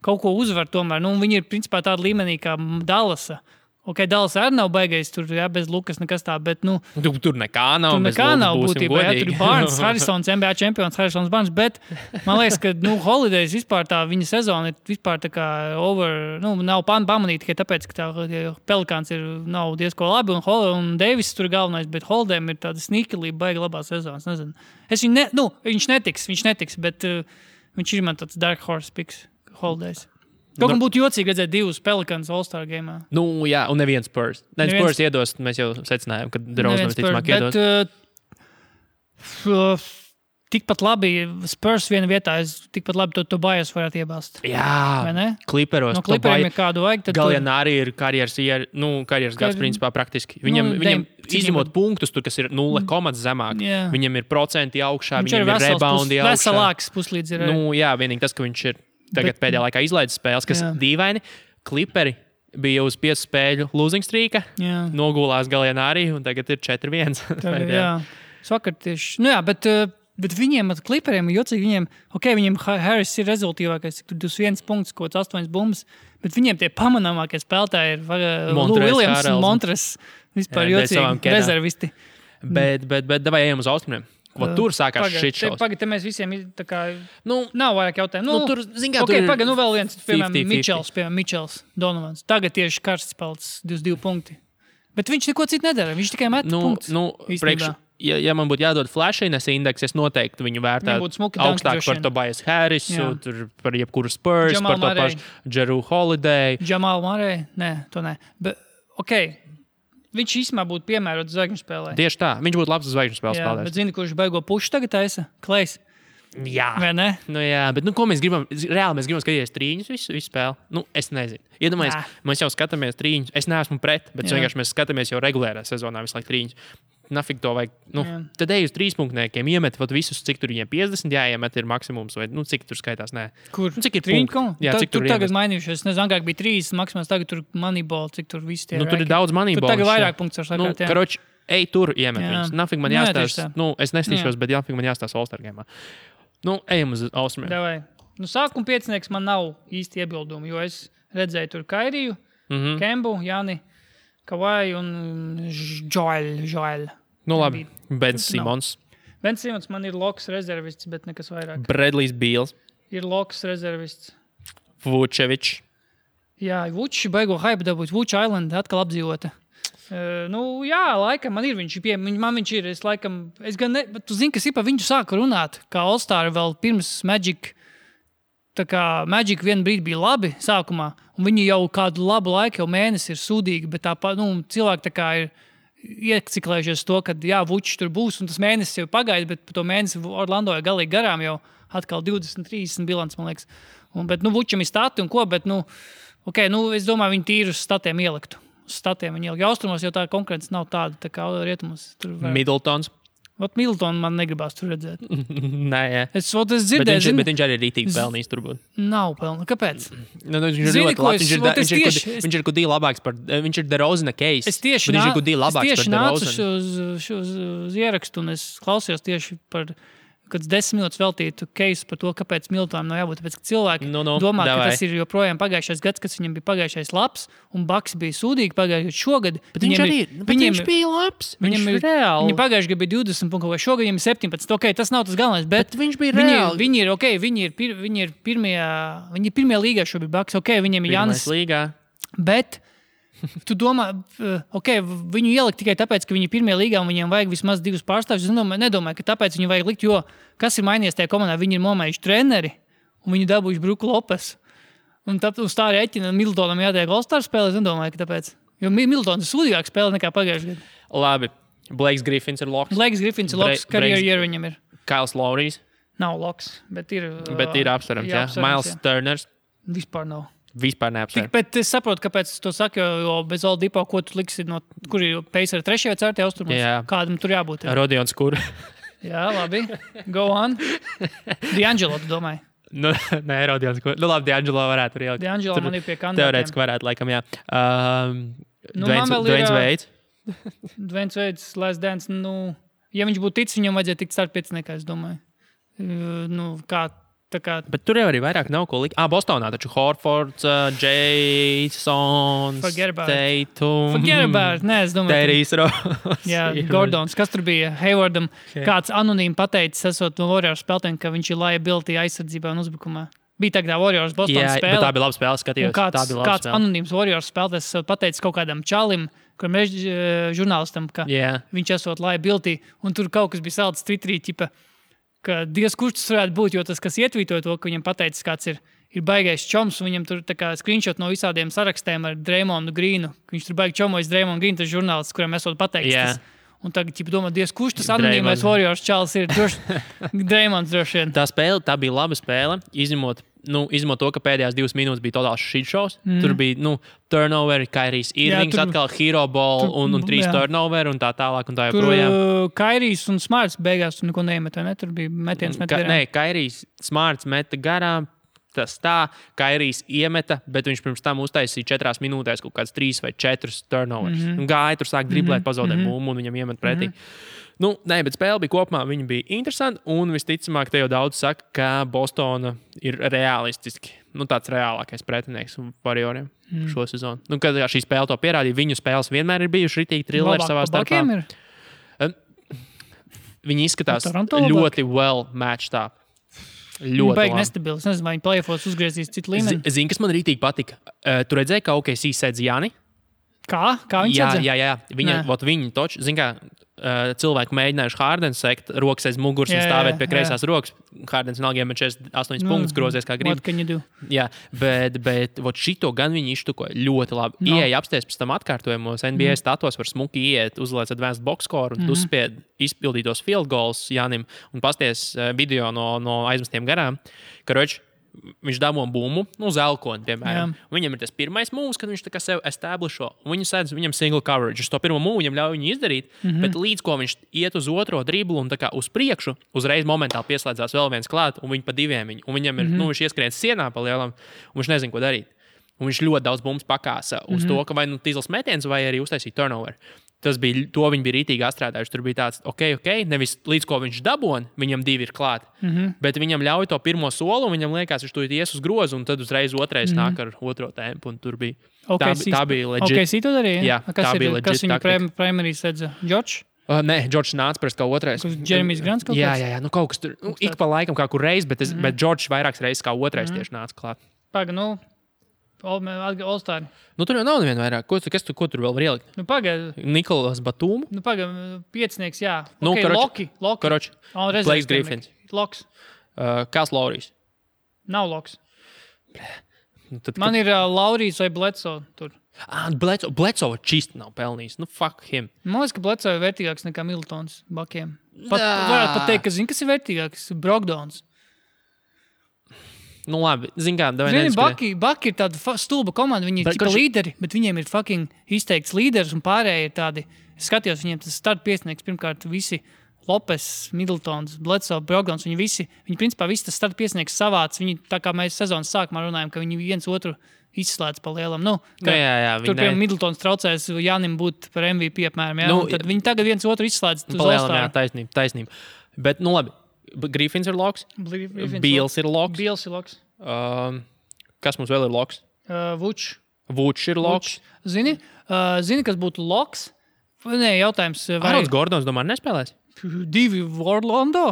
kaut ko uzvar tomēr, viņi ir principā tāda līmenī kā Dallasa. Dallas arī nav baigais, tur bez Lukas nekas tā, bet, Tur nekā nav. Tur nekā nav būtībā, tur ir Barnes, Harrisons, NBA čempions, Harrisons Barnes, bet man liekas, ka, Holidays vispār tā viņa sezona ir vispār tā kā nav pamanīta tikai tāpēc, ka tā Pelikāns nav diezko labi, un Davis tur galvenais, bet Holidayam ir tāda sneakelība, baiga labā sezonas, nezinu. Viņš netiks, bet viņš ir man tāds dark horse picks, Holidays. Kaut kā būtu jocīgi redzēt 2 Pelikāns All-Star gameā. Jā, un neviens Spurs. Spurs iedos, mēs jau secinājām, ka DeRozan visticamāk iedos. Bet tikpat labi Spurs viena vietā, tikpat labi to Tobias varētu iebāzt. Jā, Clipperos. No Clipperiem ir kādu vajag. Gallianari ir karjeras gads principā praktiski. Viņam izņemot punktus, tur, kas ir 0 komatas zemāk, viņam ir procenti augšā, viņam ir reboundi augšā. Veselāks puslīdz ir. Vienīgi tas, ka viņš ir tagad pēdējā laikā izlaidis spēles, kas dīvaini. Clipperi bija uz 5 spēļu losing streaka, nogulās Gallianari, un tagad ir 4-1. Vakar tieši. Bet viņiem, Clipperiem, ir jocīgi, viņiem Harris ir rezultīvākais, cik tur 21 punkts, kaut 8 bumbas, bet viņiem tie pamanāmākie spēlētāji ir Lou Williams un Montres. Vispār jocīgi, rezervisti. Bet davai ejam uz austrumiem. Tur sākās šit šaus. Pagad, mēs visiem tā kā nav vairāk jautājumu. Tur, zin kā, tur ir vēl viens, piemēram, Mičels, Donovans. Tagad tieši karsts pelts 22 punkti. Bet viņš neko citu nedara, viņš tikai met punktus. Ja man būtu jādod flashines indeks, es noteikti viņu vērtētu augstāk par Tobias Harrisu, par jebkuru Spurs, par to pašu Jrue Holiday. Jamal Murray? Nē, to nē. Bet, viņš īstenībā būtu piemērots zvaigžņu spēlē. Tieši tā. Viņš būtu labs zvaigžņu spēles spēlētājs. Bet zini, kurš beigo pušu tagad taisa? Klejs. Jā. Vai ne? Bet ko mēs gribam? Reāli mēs gribam skatīties trīņus visu spēli. Es nezinu. Iedomājies, mēs jau skatāmies trīņus. Es neesmu pret, bet vienkārši mēs skatāmies jau regulārā sezonā visu laiku trīņus. Nafik to vajag. Tad ej uz 3-punktniekiem, iemet visus, cik tur viņiem 50 jāiemet ir maksimums, vai cik tur skaitās, nē. Kur? Cik ir punkti? Jā, cik tur tagad mainījušies. Nezinu, agrāk bija 3 maksimums, tagad tur Moneyball, cik tur viss tie. Tur ir daudz Moneyball. Tur tagad vairāk punkts var sakāt, jā. Karoči, ej tur iemet viņus. Nafik man jāstāsta. Es nestīšos, bet nafik man jāstāsta All-Star gamā. Ejam uz austrumiem. Davai. Sākuma piecinieks man nav īsti iebildumi, jo es redzēju tur Kairiju, Kembu, Jani, Kavai un Joel. Labi. Ben Simons. Ben Simons man ir loks rezervists, bet nekas vairāk. Bradley's Beals. Ir loks rezervists. Vučevičs. Jā, Vučs baigo hype dabūt. Vučs Island atkal apdzīvota. Laikam man ir viņš ir. Es gan ne, bet tu zini, kas ir par viņu sāka runāt, kā All-Star vēl pirms Magic. Tā kā Magic vienu brīdi bija labi sākumā, un viņi jau kādu labu laiku, jau mēnesi ir sūdīgi, bet cilvēki tā kā ir ieciklējušies to, ka Vučs tur būs, un tas mēnesis jau pagaida, bet par to mēnesi Orlando ir galīgi garām jau atkal 20-30 bilants, man liekas. Bet Vučam ir stati un ko, bet es domāju, viņi tīri uz statiem ieliktu. Uz statiem viņi ielikt. Austrumos jau tā konkurence nav tāda, tā kā rietumos. Middletons. Middletonu man negribās tur redzēt. Nē, jā. Es dzirdēju, bet viņš arī rītīgi pelnījis turbūt. Nav pelnījis. Kāpēc? Viņš ir gudīgi labāks par... Viņš ir DeRozana case. Es tieši nācu uz ierakstu un es klausījos tieši par... Kad 10 minūtes veltītu case par to, kāpēc Middletonam nav jābūt. Tāpēc, ka cilvēki domā, ka tas ir joprojām pagājušais gads, kas viņam bija pagājušais labs, un Bucks bija sūdīgi pagājušais šogad. Bet viņš bija labs. Viņš ir reāli. Viņam pagājušajā gadā bija 20 punkti, vai šogad viņam ir 17. Tas nav tas galvenais, bet viņš bija reāli. Viņi ir pirmajā līgā šobrīd Bucks. Viņiem ir Jānis. Bet tu domā, viņu ielikt tikai tāpēc, ka viņi ir pirmajā līgā un viņiem vajag vismaz 2 pārstāvjus. Es nedomāju, ka tāpēc viņu vajag likt, jo kas ir mainījies tajā komandā? Viņi ir nomējuši treneri un viņi dabūjuši Bruku Lopes. Un uz tā rēķina Middletonam jātiek All-Star spēlē. Es nedomāju, ka tāpēc. Jo Middletons ir sūdīgāk spēlē nekā pagājušajā gadā. Labi. Blakes Griffins ir loks. Karjeru viņam ir. Kails Lowrys. Nav loks, bet ir apsverams, jā. Miles Turners. Vispār nav. Vispār neapsver. Bet es saprotu, kāpēc es to saku, jo bez Oladipo, ko tu liksi, kur ir Pacers 3. vai 4. austrumos? Kādam tur jābūt? Rodions Kur. Jā, labi. Go on. D'Angelo, tu domāji? Nē, Rodions Kur. Labi, D'Angelo varētu tur ielikt. D'Angelo man ir pie kandidātiem. Teorētiski varētu, laikam, jā. Dwayne Wade. Dwayne Wade, Last Dance, ja viņš būtu ticis, viņam vajadzēja tikt start 5, es domāju. Bet tur jau arī vairāk nav ko likt. Bostonā taču Horfords, Jasons, Tatum, es domāju, Terijs Ross. Jā, Gordons. Kas tur bija? Haywardam kāds anonīmi pateicis, esot no Warriors spēlētājiem, ka viņš ir liability aizsardzībā un uzbrukumā. Bija tā kā Warriors Bostonas spēle. Jā, tā bija laba spēle, skatījos. Kāds anonīms Warriors spēlētājs esot pateicis kaut kādam čalim, kuram žurnālistam, ka viņš esot liability, un tur kaut kas bija salds Twitterī, ka Dievs, kurš tas varētu būt, jo tas, kas ietvītoja to, ka viņam pateicis, kāds ir baigais čoms, un viņam tur tā kā screenshot no visādiem sarakstiem ar Draymondu Grīnu. Viņš tur baigi čomojas Draymondu Grīnu, tas žurnālists, kuram esot pateicis tas. Un tagad domā, Dievs, kurš tas anonīmais Warriors čalis ir? Draymonds droši vien. Tā bija laba spēle, izņemot to, ka pēdējās 2 minūtes bija totāls shit shows. Tur bija turnoveri, Kairijs Irvings, atkal hero ball un 3 turnoveri un tā tālāk un tā joprojām. Tur Kairijs un Smarts beigās tur neko neiemet, ne? Tur bija metiens garām. Nē, Kairijs Smarts meta garām. Tas tā, Kairijs iemeta, bet viņš pirms tam uztaisīja 4 minūtēs kaut kāds 3 vai 4 turnovers. Gāja tur sāk driblēt, pazaudēt bumbu un viņam iemet pretī. Nē, bet spēle bija kopumā, viņa bija interesanta, un visticamāk, te jau daudz saka, ka Bostona ir realistiski, tāds reālākais pretinieks Warrioriem šo sezonu. Kad šī spēle to pierādīja, viņu spēles vienmēr ir bijuši ritīgi trilleri savā starpā. Viņi izskatās ļoti well matched up. Ļoti baigi nestabili. Es nezinu, vai viņi play-offos uzgriezīs citu līmeni. Zini, kas man rītīgi patika? Tu redzēji, ka OKC sēdz Jāni? Kā? Kā viņi sēdz? Jā. Viņi toči, zini kā, cilvēki mēģinājuši Hardens sekt, rokas aiz muguras un stāvēt pie kreisās rokas. Hardens vienalga iemet 48 punktus, grozies kā grib. What can you do? Jā, bet šito gan viņi iztukoja ļoti labi. Ieeja apsties pēc tam atkārtojumos, NBA statos var smuki iet, uzliec advanced box score un uzspied izpildītos field goals Jānim un pasties video no aizmestiem garām. Karoči, viņš dabūja bumbu, zelkoni, piemēram. Viņam ir tas pirmais mūvs, kad viņš tā kā sev establisho. Viņam single coverage. Uz to pirmo mūvu viņam ļauj viņu izdarīt, bet līdz ko viņš iet uz otro driblu un tā kā uz priekšu, uzreiz momentāli pieslēdzās vēl viens klāt, un viņi pa diviem viņu. Un viņam ir, viņš ieskrien sienā pa lielam, un viņš nezin, ko darīt. Un viņš ļoti daudz bumbas pakāsa uz to, ka vai tīzls metiens, vai arī uztaisīja turnover. To viņi bija rītīgi atstrādājuši. Tur bija tāds, ok, nevis līdz ko viņš dabūja, viņam 2 ir klāt, bet viņam ļauj to pirmo soli, un viņam liekas, viņš to ies uz grozu, un tad uzreiz otrais nāk ar otro tempu, un tur bija. Tā bija legit. OKC to darīja? Jā, tā bija legit. Kas viņu primarī sedza? Džordžs? Nē, Džordžs nāca pēc kā otrais. Jeremijs Grants kaut kāds? Jā, kaut kas tur, ik pa laikam kā kur reiz, bet Džordžs vairākas reizes kā otrais tieši nāca klāt. Paga, All-Star. Nu, tur jau nav neviena vairāk. Ko tur vēl var ielikt? Nu, pagaid. Nikolas Batūmu? Nu, pagaid, piecinieks, jā. Nu, Loki. Karoči. Blakes Griffins. Loks. Kāds Laurijs? Nav Loks. Nu, tad, Man ir Laurijs vai Bledsoe tur. Bledsoe čist nav pelnījis. Nu, fuck him. Man liekas, ka Bledsoe ir vērtīgāks nekā Middletons bakiem. Varētu pat teikt, ka zini, kas ir vērtīgāks? Brogdons. Nu, labi. Zini kā, Baki ir tāda stulba komanda. Viņi ir tikai līderi, bet viņiem ir fucking izteikts līderis un pārējie ir tādi. Es skatījos, viņiem tas start piesnieks pirmkārt visi Lopes, Middletons, Bledsoe, Brogdons. Viņi principā visi tas start piesnieks savāds. Viņi, tā kā mēs sezonas sākumā runājam, ka viņi viens otru izslēdz pa lielam. Nu, jā, tur, piemēram, Middletons traucēs Jānim būt par MVP apmēram. Jā, nu, tad viņi tagad viens otru izslēdz uz All-Star. Jā, taisnība. Bet, nu labi. Griffins ir loks. Beals ir loks. Kas mums vēl ir loks? Vučs ir loks. Zini, kas būtu loks? Nē, jautājums. Arons Gordons, domāju, nespēlēs? 2 Orlando?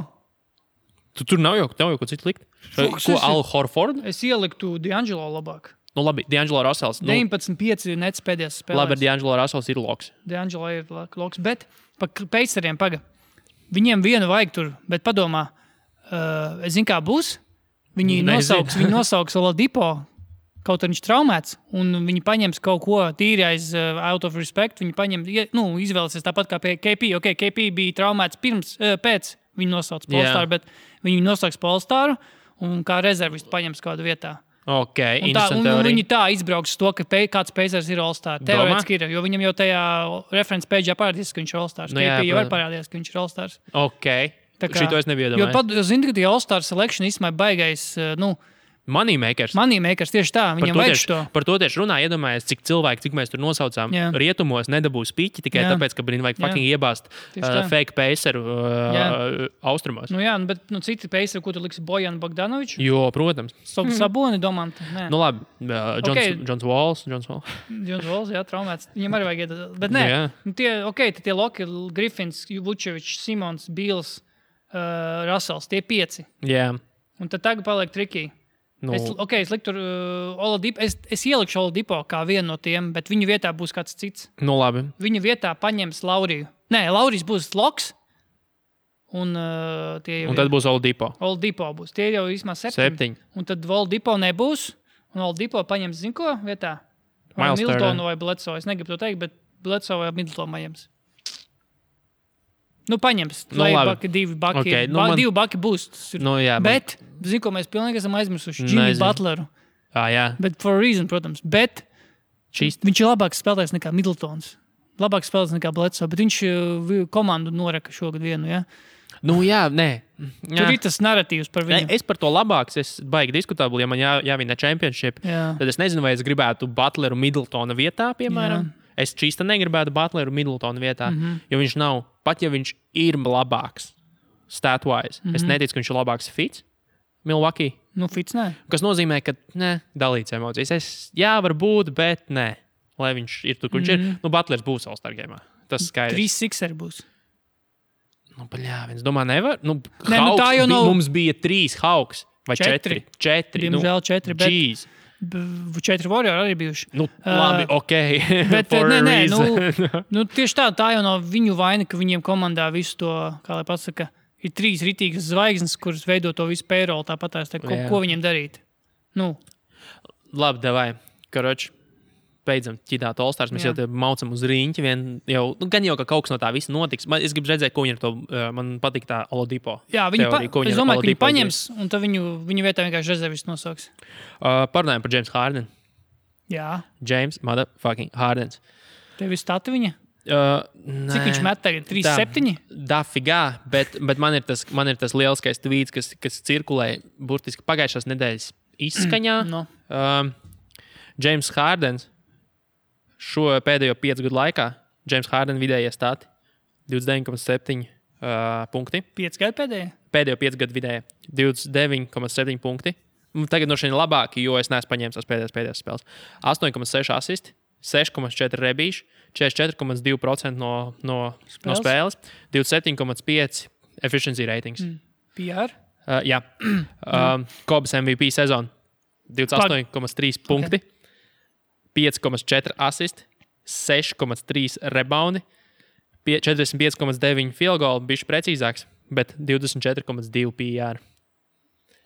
Tur nav jau ko citu likt. Ko Al Horford? Es ieliktu D'Angelo labāk. Nu labi, D'Angelo Russells. 19-5 nets pēdējās spēlēs. Labi, D'Angelo Russells ir loks. D'Angelo ir loks, bet pa Paceriem viņiem vienu vajag tur, bet padomā, es zinu, kā būs. Viņi nosauks Oladipo, kaut arī viņš traumēts, un viņi paņems kaut ko tīri aiz out of respect. Viņi izvēlēsies tāpat kā KP. Okay, KP bija traumēts pēc viņa nosauc All-Star, bet viņi nosauks All-Staru un kā rezervistu paņems kādu vietā. Okay, un viņi tā izbrauks to, ka kāds Pacers ir All-Star. Teorētiski ir, jo viņam jau tajā reference page parādīs, ka viņš ir All-Stars. KP jau var parādījās, ka viņš ir All-Stars. Okay. Šito es nebiju iedomājies. Jo zini, ka tie All-Star selection īstenībā baigais, Moneymakers. Tieši tā, viņam vajag šo. Par to tieši runā, iedomājies, cik mēs tur nosaucām. Jā. Rietumos nedabūs piķi tikai tāpēc, ka vajag fucking iebāzt fake Paceru austrumos. Jā, bet citi Paceru, ko tu liksi Bojanu Bogdanoviču? Jo, protams. Saboni, Domantu. Nu labi, Johns Walls, jā, traumēts. Viņam arī vajag iedot. Bet nē, tie Loki, Griffins, Vučevičs, Simons, Beals, Russells, tie 5. Jā. Un tad tagad paliek trikī. Es liktu tur Oladipo. Es ielikšu Oladipo kā vienu no tiem, bet viņa vietā būs kāds cits. Nu, labi. Viņa vietā paņems Lauriju. Nē, Laurijs būs loks. Un tad būs Oladipo. Oladipo būs. Tie jau vismaz 7. Un tad Oladipo nebūs. Un Oladipo paņems, zin ko, vietā? Vai Middletonu vai Bledsoe. Es negribu to teikt, bet Bledsoe vai Middletonu paņems. Paņems. Baki, 2 baki. Okay, 2 baki būs. Bet, zinu, ko mēs pilnīgi esam aizmirsuši. Jimmy Butleru. Jā. Bet for a reason, protams. Bet viņš ir labāks spēlētājs nekā Middletons. Labāks spēlētājs nekā Bledsoe. Bet viņš komandu noreka šogad vienu, jā? Nē. Tur ir tas narratīvs par viņu. Es par to labāks. Es baigi diskutabli, ja man jāvina championship. Jā. Tad es nezinu, vai es gribētu Butleru Middletona vietā, piemēram. Jā. Es čīsta negribētu Butleru Middletona vietā, jo viņš nav, pat ja viņš ir labāks stat-wise, es neticu, ka viņš ir labāks fits Milwaukee. Fits nē. Kas nozīmē, ka dalīts emocijas. Varbūt, bet nē. Lai viņš ir tur, kur viņš ir. Butlers būs All-Star game'ā. Tas skaidrs. 3 Sixeri būs. Es domāju, nevar. Tā jau nav. Mums bija 3 Hawks vai 4. Diemžēl 4, bet... Jeez. 4 Warrior arī bijuši. Labi, ok. Bet tieši tā jau nav viņu vaina, ka viņiem komandā visu to, kā lai pasaka, ir 3 ritīgas zvaigznes, kuras veido to visu payroll, tāpat ko viņiem darīt. Labi, davai. Karoči, beidzam ķidāt All-Stars. Mēs jau te maucam uz riņķi. Gan jau, ka kaut kas no tā visa notiks. Es gribu redzēt, ko viņi ar to, man patīk tā Oladipo. Jā, es domāju, ka viņi paņems, un tad viņu vietā vienkārši rezervis nosauks. Parunājam par James Harden. Jā. James motherfucking Hardens. Tev ir stati viņa? Cik viņš met tagad? 3-7? Dafigā, bet man ir tas lieliskais tweets, kas cirkulē burtiski pagājušās nedēļas izskaņā. James Hardens šo pēdējo 5 gadu laikā James Harden vidējie stati 29,7 punkti. 5 gadu pēdējie? Pēdējo 5 gadu vidējie 29,7 punkti. Tagad no šiem labāki, jo es neesmu paņēmis tās pēdējās spēles. 8,6 asisti, 6,4 rebīši, 44,2% no spēles, 27,5 efficiency ratings. PR? Jā. Kobas MVP sezonu 28,3 punkti. 5,4 asisti, 6,3 rebaundi, 45,9 field goal, bišķi precīzāks, bet 24,2 PR.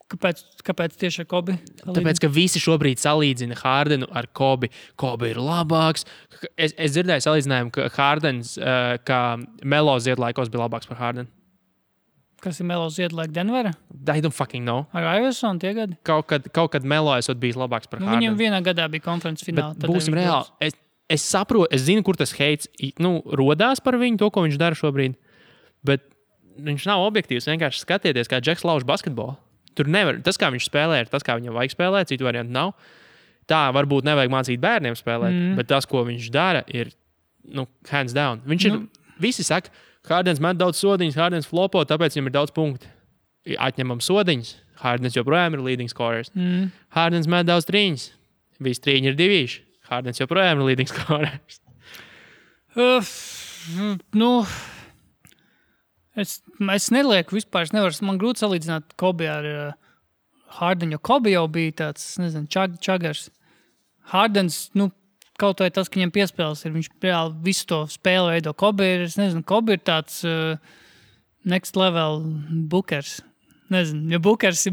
Kāpēc tieši ar Kobi? Tāpēc, ka visi šobrīd salīdzina Hardenu ar Kobi. Kobi ir labāks. Es dzirdēju salīdzinājumu, ka Hardens, kā Melo ziedlaikos, bija labāks par Hardenu. Kas ir Melo ziedlaika Denvera? I don't fucking know. Ar Iverson tie gadi? Kaut kad Melo esot bijis labāks par Hardenu. Viņam vienā gadā bija konferences fināla. Būsim reāli. Es saprotu, es zinu, kur tas heits rodās par viņu, to, ko viņš dara šobrīd. Bet viņš nav objektīvs. Vienkārši skatieties, kā Džeks lauž basketbolu. Tur nevar. Tas, kā viņš spēlē, ir tas, kā viņam vajag spēlēt. Citu variantu nav. Tā varbūt nevajag mācīt bērniem spēlēt, bet tas, ko viņš dara, ir hands down. Viņš ir, visi saka, Hardens met daudz sodiņas, Hardens flopo, tāpēc viņam ir daudz punktu. Atņemam sodiņas. Hardens joprojām ir leading scorers. Hardens met daudz trīņas. Visi trīņi ir divīši. Hardens joprojām ir leading scorers. Es nelieku vispār, man grūti salīdzināt Kobi ar Hardenu, jo Kobi jau bija tāds, čagars. Hardens, kaut vai tas, ka viņam piespēles ir, viņš reāli visu to spēli veido. Kobi ir tāds next level bookers. Jo Bookers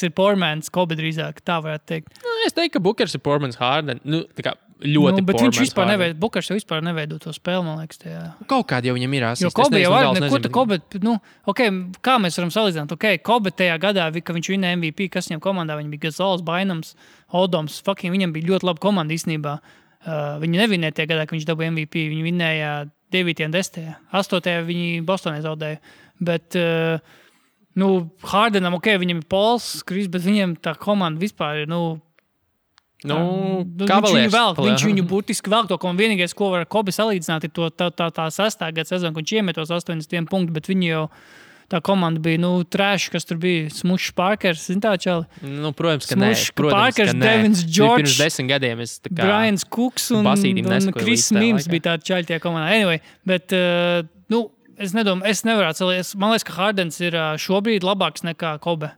ir Pormans, Kobi drīzāk, tā varētu teikt. Es teiktu, ka Bookers ir Pormans Harden. Tā kā ļoti bet Pormans viņš vispār Harden. neveido, Bookers jau vispār neveido to spēli, man liekas. Tajā. Kaut kādi jau viņam ir asisti. Jo Kobi jau var, kā mēs varam salīdzināt? Kobi tajā gadā, ka viņš vinēja MVP, kas viņam komandā, viņi bija Gazols, Bainams, Odoms, viņam bija ļoti laba komanda īstenībā. Viņi nevinēja tajā gadā, ka viņš dabūja MVP, viņi vinēja 9. un 10. 8. viņi Bostonē zaudēja. Bet Hardenam, viņam ir Pols, Kris, bet viņam tā komanda vispār ir, viņš viņu burtiski vēl to, un vienīgais, ko var Kobi salīdzināt, ir tā 6. gada sezona, ka viņš iemetos 80 punktus, bet viņi jau tā komanda bija, trash, kas tur bija, Smušs Parkers, tā čali? Protams, ka nē. Parkers, Devins George, pirms 10 gadiem es tā kā Brians Cooks un Chris Mims bija tādi čaļi tie komanda. Anyway, bet, es nedomāju, es nevarētu salīdzināt. Man liekas, ka Hardens ir šobrīd labāks nekā Kobe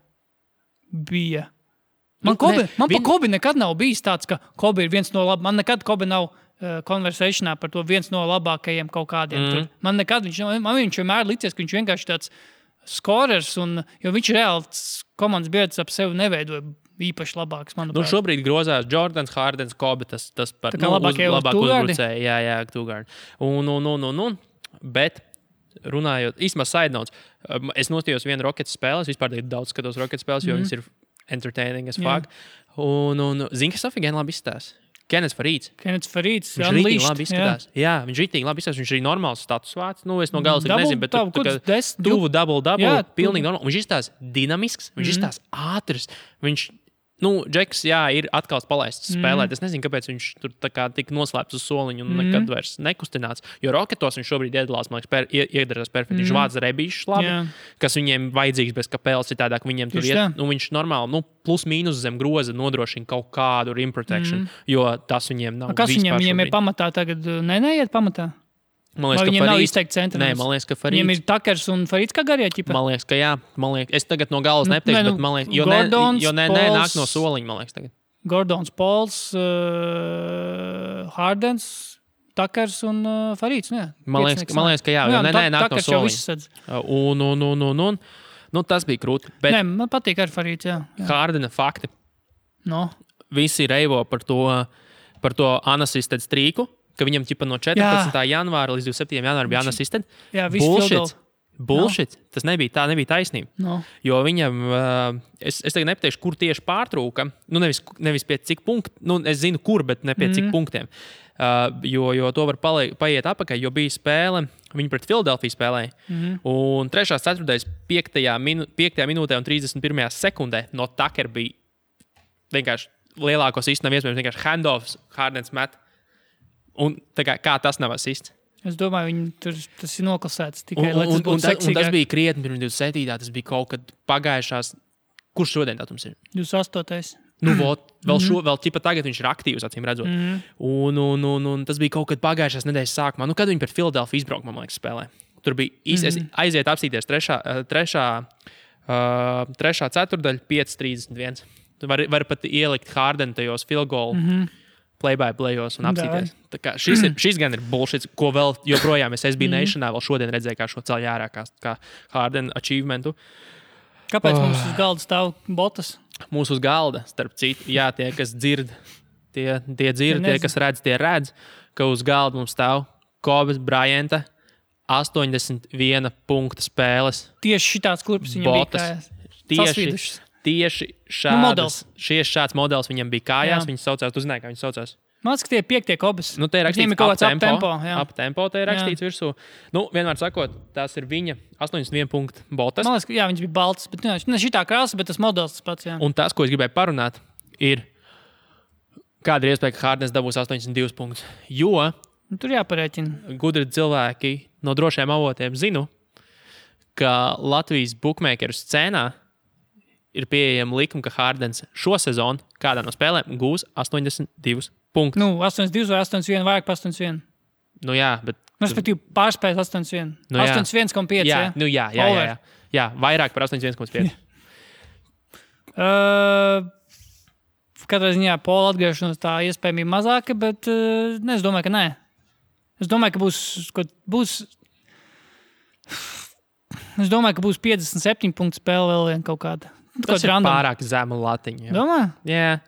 bija. Man pa Kobi nekad nav bijis tāds, ka Kobi ir viens no labākajiem. Man nekad Kobi nav konversēšanā par to viens no labākajiem kaut kādiem. Man viņš vienmēr licies, ka viņš vienkārši tāds skorers, jo viņš reāli komandas biedrs ap sevi neveidoja īpaši labāks, manuprāt. Šobrīd grozās Jordans, Hardens, Kobi, tas par labākie uzbrucēji. Jā, Tūgārdi. Bet runājot, īstenībā side notes, es nostījos vienu Rockets spēles, vispār daudz skatos Rockets spēles, jo viņas ir entertaining as fuck. Un zini, kas Sofija gan labi izstās? Kennets Farīds. Viņš rītīgi labi izskatās. Jā, viņš rītīgi labi izskatās. Viņš arī normāls status vārds. Es no galas nezinu, bet tuvu double, pilnīgi normāli. Viņš izstās dinamisks, viņš izstās ātrs. Viņš, Džeks, ir atkal palaists spēlēt. Es nezinu, kāpēc viņš tur tā kā tik noslēpts uz soliņu un nekad vairs nekustināts. Jo Rocketos viņš šobrīd iedalās, man liekas, iedarās perfekti. Viņš vāc rebīšus labi, kas viņiem vajadzīgs bez kapēles citādāk. Viņiem tur iet, viņš normāli, plus mīnus zem groza nodrošina kaut kādu rim protection, jo tas viņiem nav. Kas viņiem ir pamatā tagad? Neiet pamatā? Man liekas, viņiem nav izteikti centri. Nē, man liekas, ka Farīds. Viņiem ir Takers un Farīds kā garie ķipa? Man liekas, ka jā. Es tagad no galas nepateikšu, bet man liekas, jo nāk no soliņa, man liekas tagad. Gordons, Pols, Hardens, Takers un Farīds. Man liekas, ka jā, jo nāk no soliņa. Un tas bija krūti. Nē, man patīk ar Farīds, jā. Hardena fakti. Visi reivo par to unassisted streaku. Ka viņam no 14. janvāra līdz 27. janvāra bija unassisted. Jā, Bullshit. Tas nebija taisnība. Jo viņam, es tagad nepateikšu, kur tieši pārtrūka. Nevis pie cik punktu. Es zinu, kur, bet ne pie cik punktiem. Jo to var paiet apakaļ, jo bija spēle, viņi pret Philadelphia spēlēja. Un 3. ceturtais 5. minūtē un 31. sekundē no Tucker bija vienkārši lielākos īsti nav iespējams, vienkārši handoffs, Hardens met. Un kā tas nav asists? Es domāju, tas ir noklasēts tikai, lai tas būtu seksīgāk. Un tas bija krietni pirms 27. Tas bija kaut kad pagājušās. Kurš šodien datums ir? 28. Vēl ķipa tagad viņš ir aktīvs, acīm redzot. Un tas bija kaut kad pagājušās nedēļas sākumā. Kad viņi pret Philadelphia izbrauka, man liekas, spēlē. Tur bija aiziet apstīties 3. ceturdaļa 5:31. Tu vari pat ielikt Hardenu tajos field goal. play-by-playos un apsīties. Tā kā šis gan ir bullshit, ko vēl joprojām es SB Nationā vēl šodien redzēju, kā šo ceļu ārā, kā Harden achievementu. Kāpēc mums uz galda stāv botas? Mūsu uz galda, starp citu, jā, tie, kas dzird, tie dzird, tie, kas redz, tie redz, ka uz galda mums stāv Kobe Bryanta 81 punktu spēles. Tieši šitāds klubs viņam botas. bija kājās. Tieši šāds modelis viņam bija kājās. Viņš saucās, tu zināji, kā viņš saucās? Man liekas, ka tie ir 5. Kobes. Nu, te ir rakstīts ap tempo, te ir rakstīts virsū. Nu, vienmēr sakot, tās ir viņa 81 punktu botas. Man liekas, ka jā, viņš bija balts, bet ne šitā krāsa, bet tas modelis tas pats, jā. Un tas, ko es gribēju parunāt, ir, kāda ir iespēja, ka Hardens dabūs 82 punktus. Jo tur jāparēķina. Gudri cilvēki no drošiem avotiem zinu, ka Latvijas bookmakeru scēnā ir pieejama likuma, ka Hardens šo sezonu kādā no spēlēm gūs 82 punktus. Nu, 82 vai 81, vairāk par 81. Nu jā, bet... Respektīvi, pārspējas 81. Nu, 81,5. Jā, nu jā. Jā, vairāk par 81,5. Katrā ziņā Pola atgriešanos tā iespējamība mazāka, bet es domāju, ka nē. Es domāju, ka būs 57 punktu spēle vēl vien kaut kāda. Tas ir pārāk zema latiņa. Domā? Jā.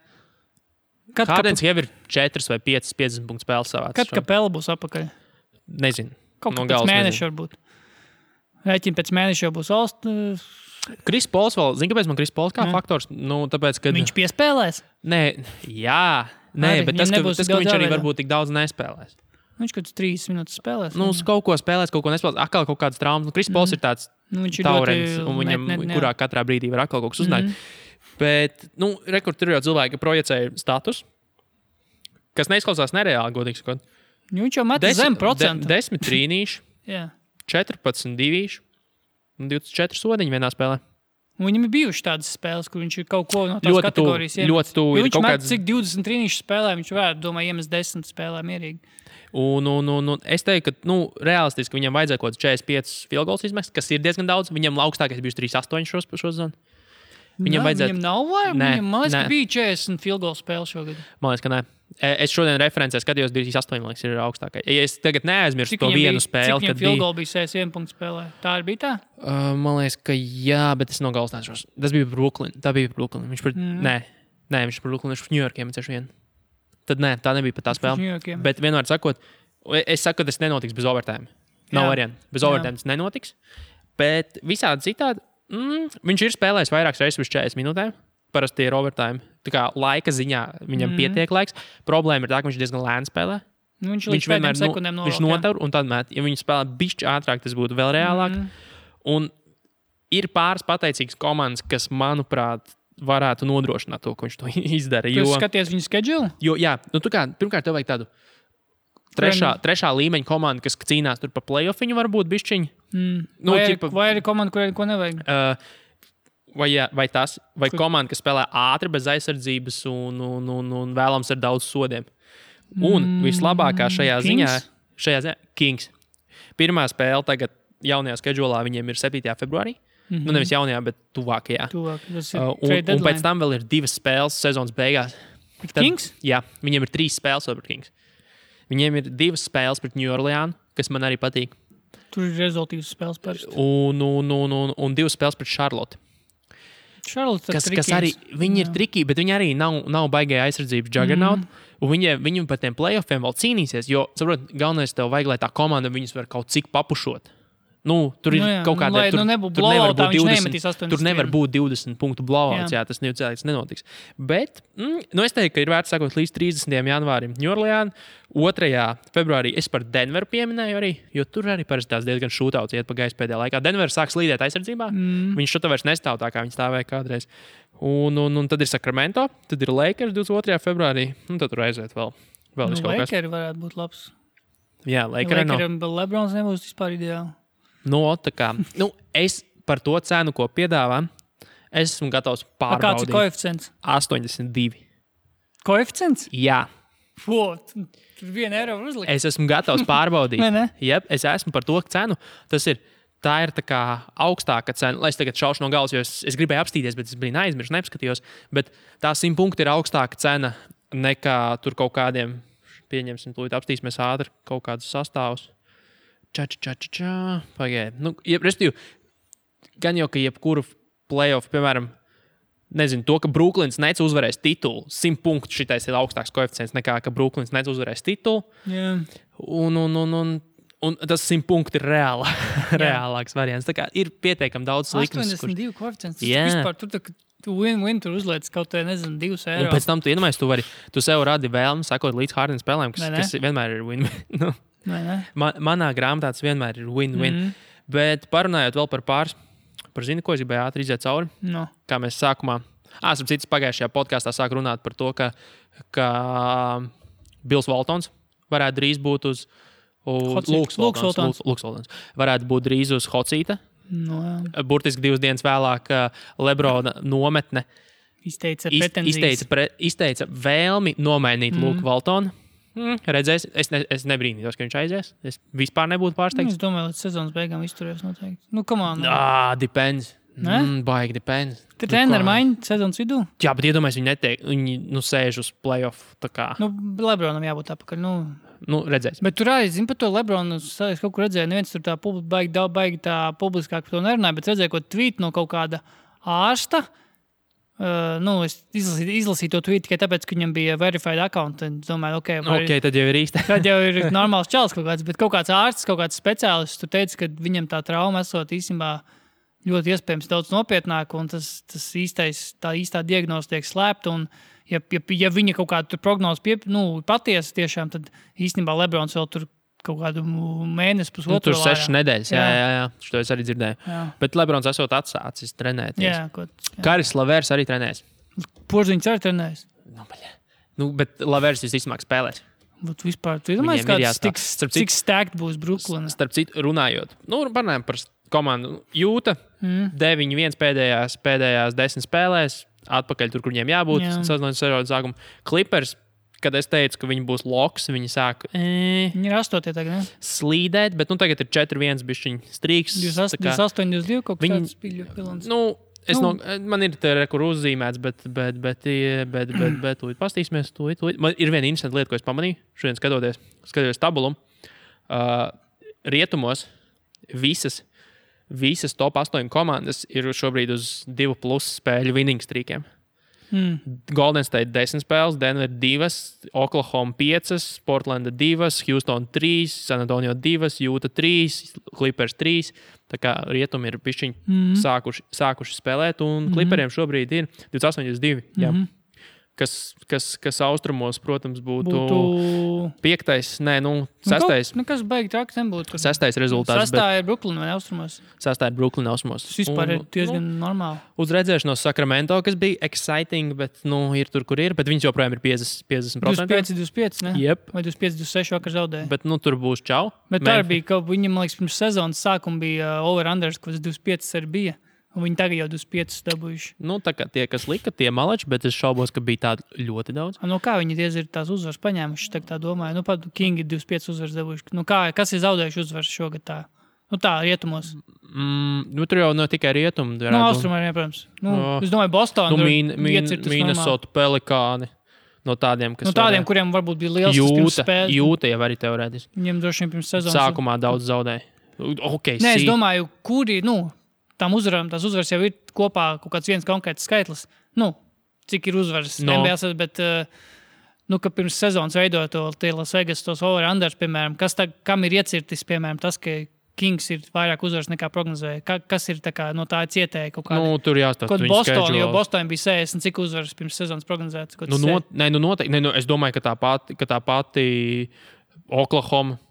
Hardens jau ir 4 vai 5 50 punktu spēles savāc. Kad Kapela būs apakaļ? Nezinu. Kaut kā pēc mēneša varbūt. Rēķina pēc mēneša jau būs Kris Pols vēl, zini, kāpēc man Kris Pols kā faktors? Nu, tāpēc, kad... Viņš piespēlēs? Bet tas, ka viņš arī varbūt tik daudz nespēlēs. Viņš kaut kāds 3 minūtes spēlēs. Nu, uz kaut ko spēlēs, kaut ko nespēlēs. Atkal kaut kādas traumas. Nu, Kris Pols ir tāds taurens, un viņam kurā katrā brīdī var atkal kaut kas uznākt. Bet, tur jau cilvēki projicēja status, kas neizklausās nereāli, godīgi sakot. Viņš jau met zem procentu. 10 trīnīši, 14 divīši un 24 sodiņi vienā spēlē. Un viņam ir bijuši tādas spēles, kur viņš ir kaut ko no tās kategorijas iemet. Ļoti tuvu. Viņš met cik 20 trīnīšu spēlē, viņš varētu, domāju, iemest 10 spēlē mierīgi. Un es teiktu, ka realistiski viņam vajadzēja kaut kāds 45 field goals izmest, kas ir diezgan daudz. Viņam augstākais bija 3,8 šo sezonu. Viņam nav vajag. Man liekas, ka bija 40 field goal spēle šogad. Man liekas, ka nē. Es šodien referencē skatījos 2,8, man liekas, ir augstākais. Ja es tagad neaizmirstu to vienu spēli, kad bija... Cik field goal bija 61 punktu spēlē? Tā arī bija tā? Man liekas, ka jā, bet es nogalstināšos. Tas bija Brooklyn. Tā bija Brooklyn. Viņš viņš par Brooklyn, viņš par New Yorkiem ceļš vien. Tad nē, tā nebija pat tā spēle. Bet vienmēr sakot, es saku, ka tas nenotiks bez overtime. Nav variantu. Bez overtime tas nenotiks. Bet visādi citādi, viņš ir spēlējis vairākas reizes uz 40 minūtēm. Parasti ir overtime. Tā kā laika ziņā viņam pietiek laiks. Problēma ir tā, ka viņš diezgan lēni spēlē. Viņš vienmēr sekundēm viņš notur un tad met. Ja viņš spēlē bišķi ātrāk, tas būtu vēl reālāk. Un ir pāris pateicīgas komandas, kas, manuprāt, varētu nodrošināt to, ko viņš to izdara. Tu skaties viņu schedule? Jā, pirmkārt, tev vajag tādu trešā līmeņa komandu, kas cīnās tur pa play-offiņu, varbūt bišķiņu. Vai arī komanda, kurai ko nevajag? Vai komanda, kas spēlē ātri, bez aizsardzības un vēlams ar daudz sodiem. Un vislabākā šajā ziņā Kings. Pirmā spēle tagad jaunajā schedulā viņiem ir 7. februārī. Nevis jaunajā, bet tuvākajā. Un pēc tam vēl ir 2 spēles sezonas beigās. Kings? Jā, viņiem ir 3 spēles pret Kings. Viņiem ir 2 spēles pret New Orleans, kas man arī patīk. Tur ir rezultīvas spēles parasti. Un 2 spēles pret Charlotte. Kas arī, viņi ir triki, bet viņi arī nav baigēja aizsardzības juggernaut. Un viņi par tiem playoffiem vēl cīnīsies, jo, saprot, galvenais tev vajag, lai tā komanda viņus var kaut cik papušot. Tur ir kaut kāda... Tur nevar būt 20 punktu blowouts, jā, tas nenotiks. Bet, es teiktu, ka ir vērts sakot līdz 30. janvārim New Orleans, 2. februārī es par Denveru pieminēju arī, jo tur arī parasti tās diezgan šūtauts iet pa gaisu pēdējā laikā. Denver sāk slīdēt aizsardzībā, viņš šutā vairs nestāv tā, kā viņi stāvēja kādreiz. Un tad ir Sacramento, tad ir Lakers 22. februārī, un tad tur aiziet vēl kaut kas. Lakeri varētu būt labs. Jā, Lakeri nav. Lebrons nebūs vispār ideāli. Es par to cenu, ko piedāvā, es esmu gatavs pārbaudīt. Kāds ir koeficients? 82. Koeficients? Jā. Tur 1 eiro var uzlikt. Es esmu gatavs pārbaudīt. Jep, es esmu par to cenu. Tā ir tā kā augstāka cena. Lai es tagad šaušu no galvas, jo es gribēju apstīties, bet es biju aizmirsis, neapskatījos. Bet tā 100 punkti ir augstāka cena nekā tur kaut kādiem, pieņemsim, tūlīt apstīsimies ātri kaut kādus sastāvus. Pagaid. Nu, respektīvi, gan jau, ka jebkuru playoff, piemēram, nezinu, to, ka Brooklyns Nets uzvarēs titulu, 100 punktu šitais ir augstāks koeficients nekā, ka Brooklyns Nets uzvarēs titulu. Jā. Un tas 100 punkti ir reālāks variants. Tā kā ir pietiekami daudz likmes. 82 koeficients. Vispār tu win-win tur uzliec kaut kā, nezinu, 2 eiro. Un pēc tam tu iedomājies, tu sev radi vēlmi sakot līdz Harden spēlēm, kas vienmēr ir win-win. Nu, manā grāmatā tas vienmēr ir win-win. Bet parunājot vēl par pāris, zini, ko es gribēju ātri iziet cauri? No. Kā mēs sākumā, starp citas pagājušajā podkāstā sāk runāt par to, ka Bills Waltons varētu drīz būt uz Lūks Waltons. Varētu būt drīz uz Hocīta. No, burtiski 2 dienas vēlāk Lebrona nometne izteica vēlmi nomainīt Lūku Waltonu. Redzēs, es nebrīnītos, ka viņš aizies. Es vispār nebūtu pārsteigts. Es domāju, līdz sezonas beigām izturēs noteikti. Nu, come on. Depends. Baigi depends. Te treneri maina sezonas vidū? Jā, bet iedomājies, viņi sēž uz playoff. Tā kā. Lebronam jābūt apakaļ. Redzēs. Bet tur arī, zinu, par to Lebronu, es kaut kur redzēju, neviens tur tā baigi tā publiskāk par to nerunāja, bet redzēju, ko tvīt no kaut kāda ārsta. Es izlasīju to tweetu tikai tāpēc, ka viņam bija verified account. Es domāju, tad jau ir īsti. Tad jau ir normāls čals kaut kāds, bet kaut kāds ārsts, kaut kāds speciālists tur teica, ka viņam tā trauma esot īstenībā ļoti iespējams daudz nopietnāk, un tā īstā diagnoze tiek slēpta, un ja viņa kaut kādu prognozi patiesa tiešām, tad īstenībā Lebrons vēl tur kaut kādu mēnesi, pusotru. Tur 6 nedēļas, jā. Šo es arī dzirdēju. Jā. Bet Lebrons esot atsācis trenēties. Jā. Karis Lavers arī trenēs. Porziņš arī trenēs. Bet Lavers visticamāk spēlēs. Bet vispār, tu domāji, cik stacked būs Brooklyn? Starp citu, runājot. Runājam par komandu. Jūta 9-1 pēdējās 10 spēlēs. Atpakaļ tur, kur viņiem jābūt. Sezonas sākuma. Clippers. Kad es teicu, ka viņi būs loks, viņi sāk viņi ir 8. tagad, ne? Slīdēt, bet tagad ir 4-1 bišķiņ strīks. 28-22 kaut kāds spīļu pilons. Man ir te kur uzzīmēts, bet tūlīt pastīsimies. Man ir viena interesanta lieta, ko es pamanīju. Šodien skatoties tabulu. Rietumos visas top 8 komandas ir šobrīd uz 2+ spēļu winning streakiem. Golden State 10 spēles, Denver 2, Oklahoma 5, Portlanda 2, Houston 3, San Antonio 2, Utah 3, Clippers 3. Tā kā rietumi ir pišķiņi sākuši spēlēt, un Clipperiem šobrīd ir 28-2. Jā. Kas austrumos, protams, būtu 5. 6. Nekas baigi traks nebūtu. 6. rezultāts. 6. ir Brooklyn vai austrumos? 6. ir Brooklyn austrumos. Tas vispār ir diezgan normāli. Uz redzēšanos Sacramento, kas bija exciting, bet ir tur, kur ir. Bet viņš joprojām ir 50%. 25, ne? Yep. Vai 25-26 vakar zaudēja. Bet tur būs čau. Bet tā bija, ka viņam, man liekas, pirms sezonas sākuma bija over-unders, kas 25 arī bija. Un viņi tagad jau 25 dabūjuši. Tā kā tie, kas lika, tie malači, bet es šaubos, ka bija tādi ļoti daudz. Kā viņi diez ir tās uzvaras paņēmuši, tā domāju. Pat King ir 25 uzvaras dabūjuši. Kas ir zaudējuši uzvaras šogad tā? Tā, rietumos. Tur jau tikai rietumi. Austrumā arī, protams. Es domāju, Bostonā Minnesota Pelikāni. No tādiem, kas tādiem, kuriem varbūt bija liels pirms spēles. Jūta jau arī teorētiski. Viņiem droši vien pirms sezonas. Sākumā daudz zaudēja. Es domāju, kuri, tām uzvarām, tās uzvaras jau ir kopā kaut kāds viens konkrēts skaitlis. Cik ir uzvaras NBA, bet ka pirms sezonas veidot tie Las Vegas tos over-unders, piemēram, kam ir iecirtis, piemēram, tas, ka Kings ir vairāk uzvaras nekā prognozēja. Kas ir no tā cietēja kaut kāda? Tur jāstāsta viņa Boston, jo Boston bija 60, cik uzvaras pirms sezonas prognozētas? Noteikti. Es domāju, ka tā pati Oklahoma.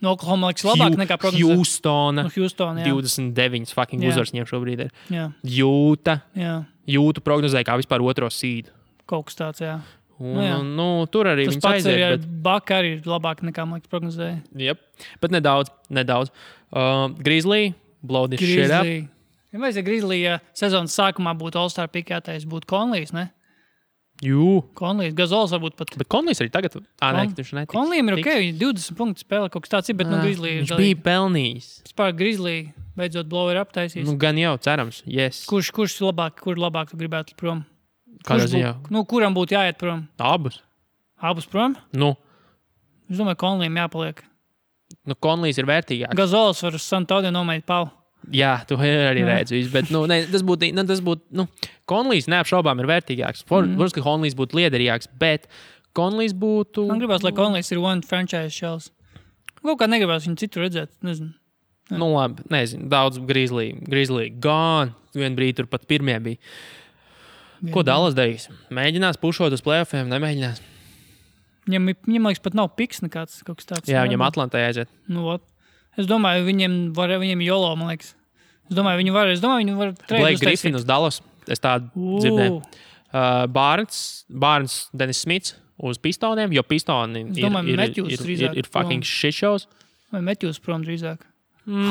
Oklahoma liekas labāk nekā prognozēja. Houston, 29 fucking uzvaras viņiem šobrīd ir. Jā. Jūta prognozēja kā vispār otro seedu. Kaut kas tāds, jā. Tur arī viņas aiziet. Bet Baka arī ir labāk nekā man liekas prognozēja. Jep, bet nedaudz. Grizzly, blow this shit up. Ja vajadzēja Grizzly, ja sezonas sākumā būtu All-Star pikētais, būtu Conleys, ne? Conleys, Gazols varbūt pat. Bet Conleys arī tagad. Conleyam ir ok, 20 punktu spēle, kaut kas tāds ir, bet Grizzly viņš bija pelnījis. Vispār Grizzly beidzot blower aptaisīs. Gan jau, cerams, yes. Kur labāk tu gribētu prom? Kādā ziņā? Kuram būtu jāiet prom? Abus prom? Nu, Es domāju, Konlijam jāpaliek. Konlijs ir vērtīgāks. Gazols var uz Santodio nomainīt Paulu. Jā, tu arī redzi visu, bet tas būtu, Konlijs neapšaubām ir vērtīgāks. Protams, ka Konlijs būtu liederīgāks, bet Konlijs būtu... Man gribās, lai Konlijs ir one franchise shells. Kaut kā negribās viņu citu redzēt, nezinu. Nu labi, nezinu, daudz Grizzly gone, vien brīdi tur pat pirmie bija. Ko Dallas darīs? Mēģinās pušot uz playoffiem, nemēģinās? Viņam liekas, pat nav piks nekāds kaut kas tāds. Jā, viņam Atlantā aiziet. Es domāju, viņiem Jolo, man liekas. Es domāju, viņi var Blake Griffin uz Dallas. Es tādu dzirdēju. Barnes, Dennis Smits uz Pistoniem, jo Pistoni ir fucking shit shows. Vai Matthews prom drīzāk.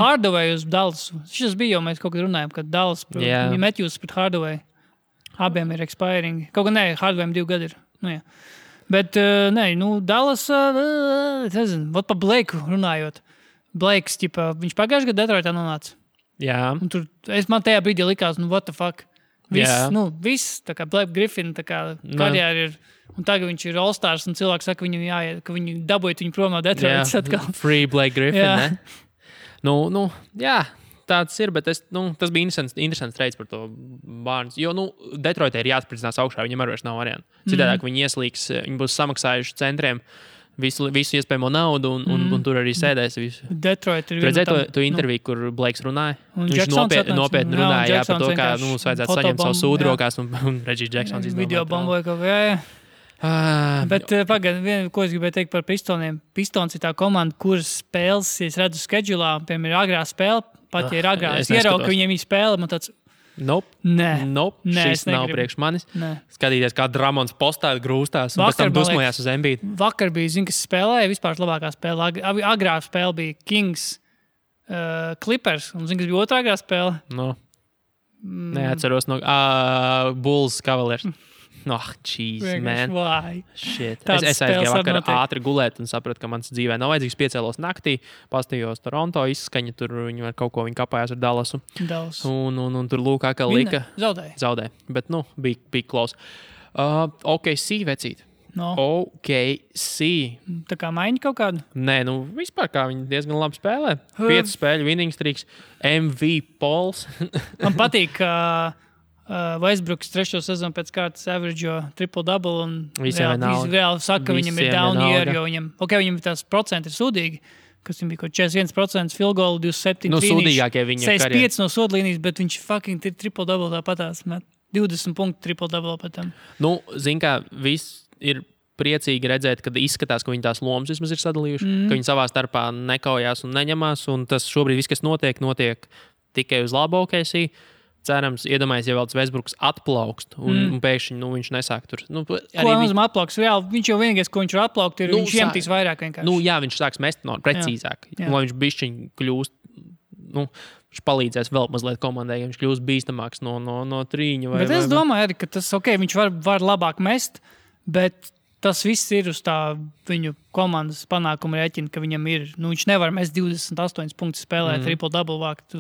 Hardaway uz Dallas. Šis bija jau mēs kaut kad runājam, kad Dallas prom. Yeah. Matthews pret Hardaway. Abiem ir expiring. Kaut kā Hardawayam 2 gadi ir. Nu, jā. Bet, Dallas, nezinu, pa Blakeu runājot. Blakes, viņš pagājušajā gadā Detroitā nonāca. Jā. Un tur, man tajā brīdī likās, what the fuck. Viss, tā kā Blake Griffin, tā kā karjēra ir, un tagad viņš ir All-Stars, un cilvēki saka, ka viņu dabūjot viņu prom no Detroitas atkal. Free Blake Griffin, ne? Jā. Tāds ir, bet tas bija interesants treids par to Barnes. Jo, Detroitē ir jāatspridzinās augšā, viņam arī vairs nav variantu. Citādāk viņi ieslīgs, viņi būs samaksājuši centriem visu iespējamo naudu un tur arī sēdēs visu. Detroit ir redzēji to interviju, kur Blakes runāja? Viņš nopietni runāja par to, kā mums vajadzētu saņemt savu sūdu rokās un Reggie Jacksons izdomāt. Video bomboja kaut kā, Bet pagaid, ko es gribēju teikt par Pistoniem. Pistons ir tā komanda, kuras spēles, ja es redzu schedulā, piemēram, ir agrā spēle, pat ja ir agrā. Es ieraugu, ka viņiem ir spēle, man tāds... Nope. Šis nav priekš manis. Skatīties, kā Dramons postā grūstās un pēc tam dusmojās uz Embiid. Vakar bija, kas spēlēja, vispār labākā spēle. Agrā spēle bija Kings Clippers, un kas bija otrā agrā spēle? Neatceros Bulls Cavaliers. Jeez, man. Shit. Es aizgāju vakar ātri gulēt un sapratu, ka mans dzīvē nav vajadzīgs. Piecēlos naktī, pastījos Toronto, izskaņa tur, viņi kaut kapājās ar Dallasu. Un tur lūkā, ka lika. Zaudēja. Bet, bija close. OKC vecīt. OKC. Tā kā maiņa kaut kādu? Nē, vispār kā viņi diezgan labi spēlē. 5 spēļu winning streaks, MV Pols. Man patīk, ka Westbrooks 3. sezonu pēc kārtas average'o triple-double un reāli saka, ka viņam ir down year, jo viņam tās procenti ir sūdīgi, kas viņam bija kaut 41% field goal, 27 sūdīgākie viņa karjerā. 65 no sodlīnijas, bet viņš fucking triple-double tāpatās met 20 punktu triple-double pēc tam. Zin kā, viss ir priecīgi redzēt, kad izskatās, ka viņi tās lomas vismaz ir sadalījuši, ka viņi savā starpā nekaujās un neņemās, un tas šobrīd viss, kas notiek tikai uz labu OKC. Cerams, iedomājies, ja vēl tas Westbrooks atplaukst un pēkšņi viņš nesāk tur. Ko nozīmē atplauks? Viņš jau vienīgais, ko viņš var atplaukt, ir viņš iemetīs vairāk vienkārši. Jā, viņš sāks mest precīzāk. Lai viņš bišķiņ kļūst, viņš palīdzēs vēl mazliet komandai, ja viņš kļūst bīstamāks no trīņa. Bet es domāju arī, ka tas, viņš var labāk mest, bet tas viss ir uz tā viņu komandas panākuma rēķina, ka viņam ir, viņš nevar mest 28 punktus spēlēt triple-double vākt.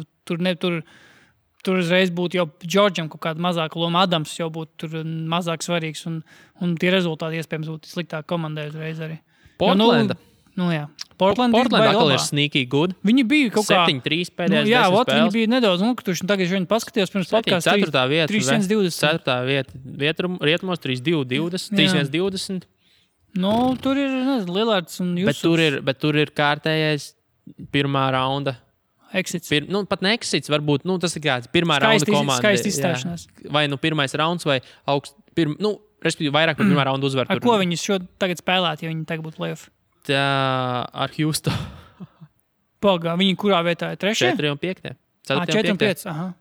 Tur uzreiz būtu jau Džordžam kaut kāda mazāka loma, Adams jau būtu tur mazāk svarīgs, un tie rezultāti iespējams būtu sliktāk komandai uzreiz arī. Portlanda. Portlanda atkal ir sneaky good. Viņi bija kaut kā 7-3 pēdējās 10 spēles. Viņi bija nedaudz, tagad viņi paskatījās pirms podcasts 3-1-20. 4. vieta, rietumos 3-2-20, 3-1-20. Tur ir, Lillards un Jusufs. Bet tur ir kārtējais pirmā raunda. Exits. Pat ne exits, varbūt, tas ir kāds pirmā raunda komanda. Skaisti izstāšanās. Vai pirmais rauns, vai respektīvi vairāk par pirmā raunda uzvaru. Ar ko viņi tagad spēlētu, ja viņi tagad būtu playoff? Ar Houston. Pagā, viņi kurā vietā ir 3? 4 un 5. 4 un 5, aha.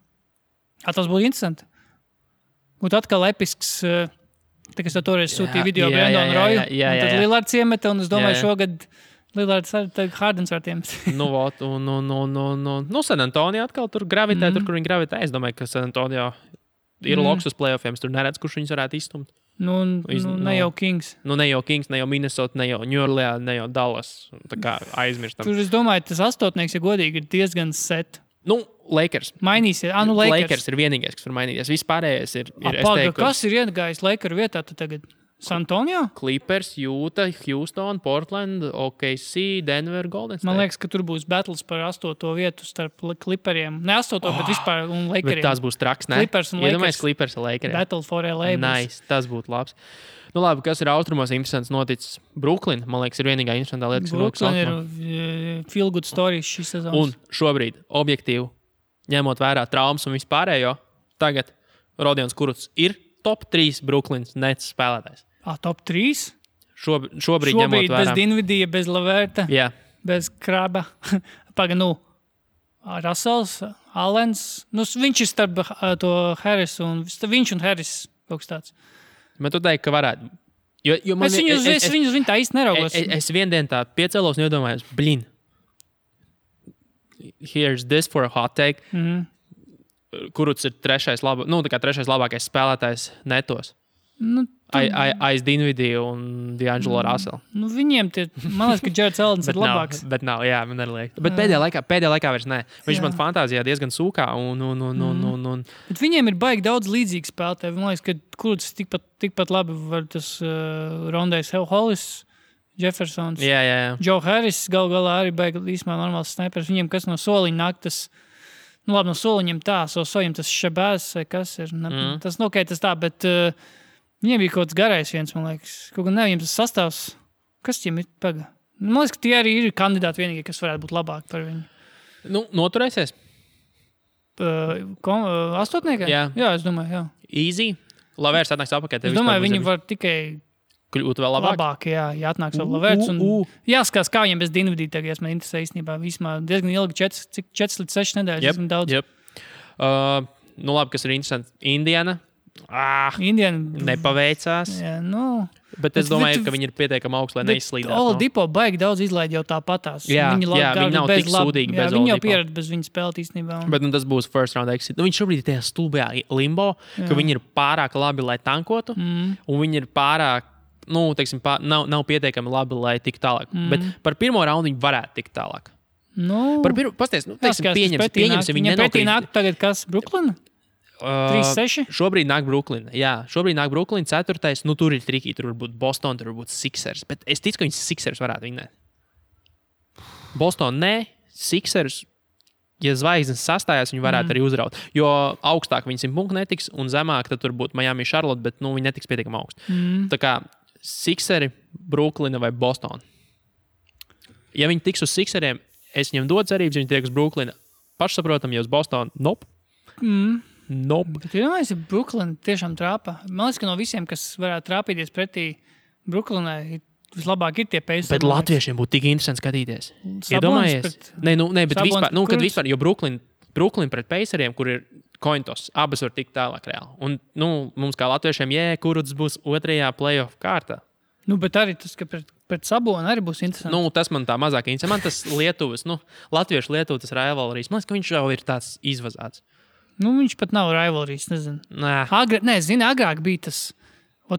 Tas būtu interesanti. Būtu atkal episks, kas toreiz sūtīja video Brandon Royu, un tad Lillards iemeta, un es domāju šogad Lillards Hardens var tiem. San Antonio atkal tur gravitē, tur, kur viņi gravitē. Es domāju, ka San Antonio ir loks uz playoffiem, tur neredz, kurš viņus varētu izstumt. Ne jau Kings. Ne jau Kings, ne jau Minnesota, ne jau New Orleans, ne jau Dallas. Tā kā aizmirstam. Tur, es domāju, tas astotnieks, ja godīgi, ir diezgan set. Lakers. Mainīsies. Lakers ir vienīgais, kas var mainīties. Vispārējais ir kas ir iegājis Lakers vietā tagad? San Antonio? Clippers, Utah, Houston, Portland, OKC, Denver, Golden State. Man liekas, ka tur būs battles par 8. vietu starp Clipperiem. Ne 8, bet vispār un Lakeriem. Tas būs traks, ne? Clippers un Lakers. Iedomājies Clippers un Lakeriem. Battle for LA. Nice, tas būtu labs. Nu labi, kas ir austrumos interesants noticis? Brooklyn, man liekas, ir vienīgā interesantā lieta, kas ir noticis austrumos. Brooklyn ir feel good stories šis sezons. Un šobrīd, objektīvi, ņemot vērā traumas un vispārējo, tagad Rodions Kurucs ir top 3 Brooklyns Nets spēlētājs. Top 3? Šobrīd ņemot vērā. Bez Dinvidija, bez Laverta, Jā. bez Kraba. Russells, Allens. Viņš ir starp to Harris un viņš un Harris kaut kas tāds. Bet tu teiksi, ka varētu. Jo es viņu tā īsti neraugos. Es vienu dienu tā piecēlos un iedomājos, here's this for a hot take. Kurucs ir trešais labākais spēlētājs netos. Aiz Dinvidiju un D'Angelo Russell. Viņiem man liekas, ka Jareds Allens ir labāks. Bet nav, jā, man arī liekas. Bet pēdējā laikā vairs ne. Viņš man fantāzijā diezgan sūkā. Bet viņiem ir baigi daudz līdzīgi spēlētāji. Man liekas, ka Kurucs tikpat labi var tas Rondejs Hollis, Jeffersons, Joe Harris galu galā arī baigi īstenībā normāls snipers. Viņiem kas no soliņa nāk tas, labi no soliņiem tā, soļiem tas Šabēs vai kas ir. Tas tas tā, bet viņiem bija kaut kāds garais viens, man liekas. Kaut gan viņiem tas sastāvs. Kas viņiem ir paga? Man liekas, ka tie arī ir kandidāti vienīgie, kas varētu būt labāki par viņu. Noturēsies? Astotniekā? Jā, es domāju, jā. Easy. Lavērs atnāks apakaļ. Es domāju, viņi var tikai kļūt vēl labāk. Jā atnāks vēl Lavērs. Jāskatās, kā viņiem bez Dinvidija tagad, ja man interesē īstenībā. Vismā diezgan ilgi, 4 līdz 6 nedēļas. Diezgan daudz. Labi, kas ir interesanti. Indiana. Indiana nepaveicās. Jā, Bet es domāju, ka viņi ir pietiekami augsti, lai neizslīdētu. Oladipo baigi daudz izlaid jau tāpatās. Viņi nav tik sūdīgi bez Oladipo. Viņi jau pieredz bez viņa spēlēt īstenībā. Bet tas būs first round exit. Viņš šobrīd ir tajā stulbajā limbo, ka viņi ir pārāk labi, lai tankotu, un viņi ir pārāk, nav pietiekami labi, lai tiktu tālāk. Bet par pirmo raundu viņi varētu tikt tālāk. Pasties, pieņemsim, viņi nenokrīt. Pretī nāk tagad kas, Brooklyn? 3-6? Šobrīd nāk Brooklyn. Jā, šobrīd nāk Brooklyn 4. Tur ir triki, tur var būt Boston, tur var būt Sixers. Bet es ticu, ka viņas Sixers varētu vinēt. Boston nē, Sixers, ja zvaigznes sastājās, viņi varētu arī uzraut. Jo augstāk viņi 100 punktu netiks, un zemāk tad tur būtu Miami, Charlotte, bet viņi netiks pietiekami augstu. Tā kā Sixeri, Brooklyn vai Boston. Ja viņi tiks uz Sixeriem, es viņiem dodu cerības, viņi tiek uz Brooklyn. Pašsaprotam, ja uz Boston, nope. Bet vienmēr Brooklyn tiešām trāpa. Man liekas, ka no visiem, kas varētu trāpīties pretī Brooklynai, vislabāk ir tie Pacers. Bet latviešiem būtu tik interesanti skatīties. Iedomājies? Bet vispār, jo Brooklyn pret Paceriem, kur ir cointos, abas var tikt tālāk reāli. Un mums kā latviešiem, Kurucs būs 2. playoff kārtā. Bet arī tas, ka pret Sabonu arī būs interesanti. Tas man tā mazāk interesanti. Man tas Lietuvas, latviešu Lietuvas rivalrīs. Man liekas, ka viņš jau ir tāds izvazāts. Viņš pat nav rivalrīs, nezinu. Agrāk bija tas.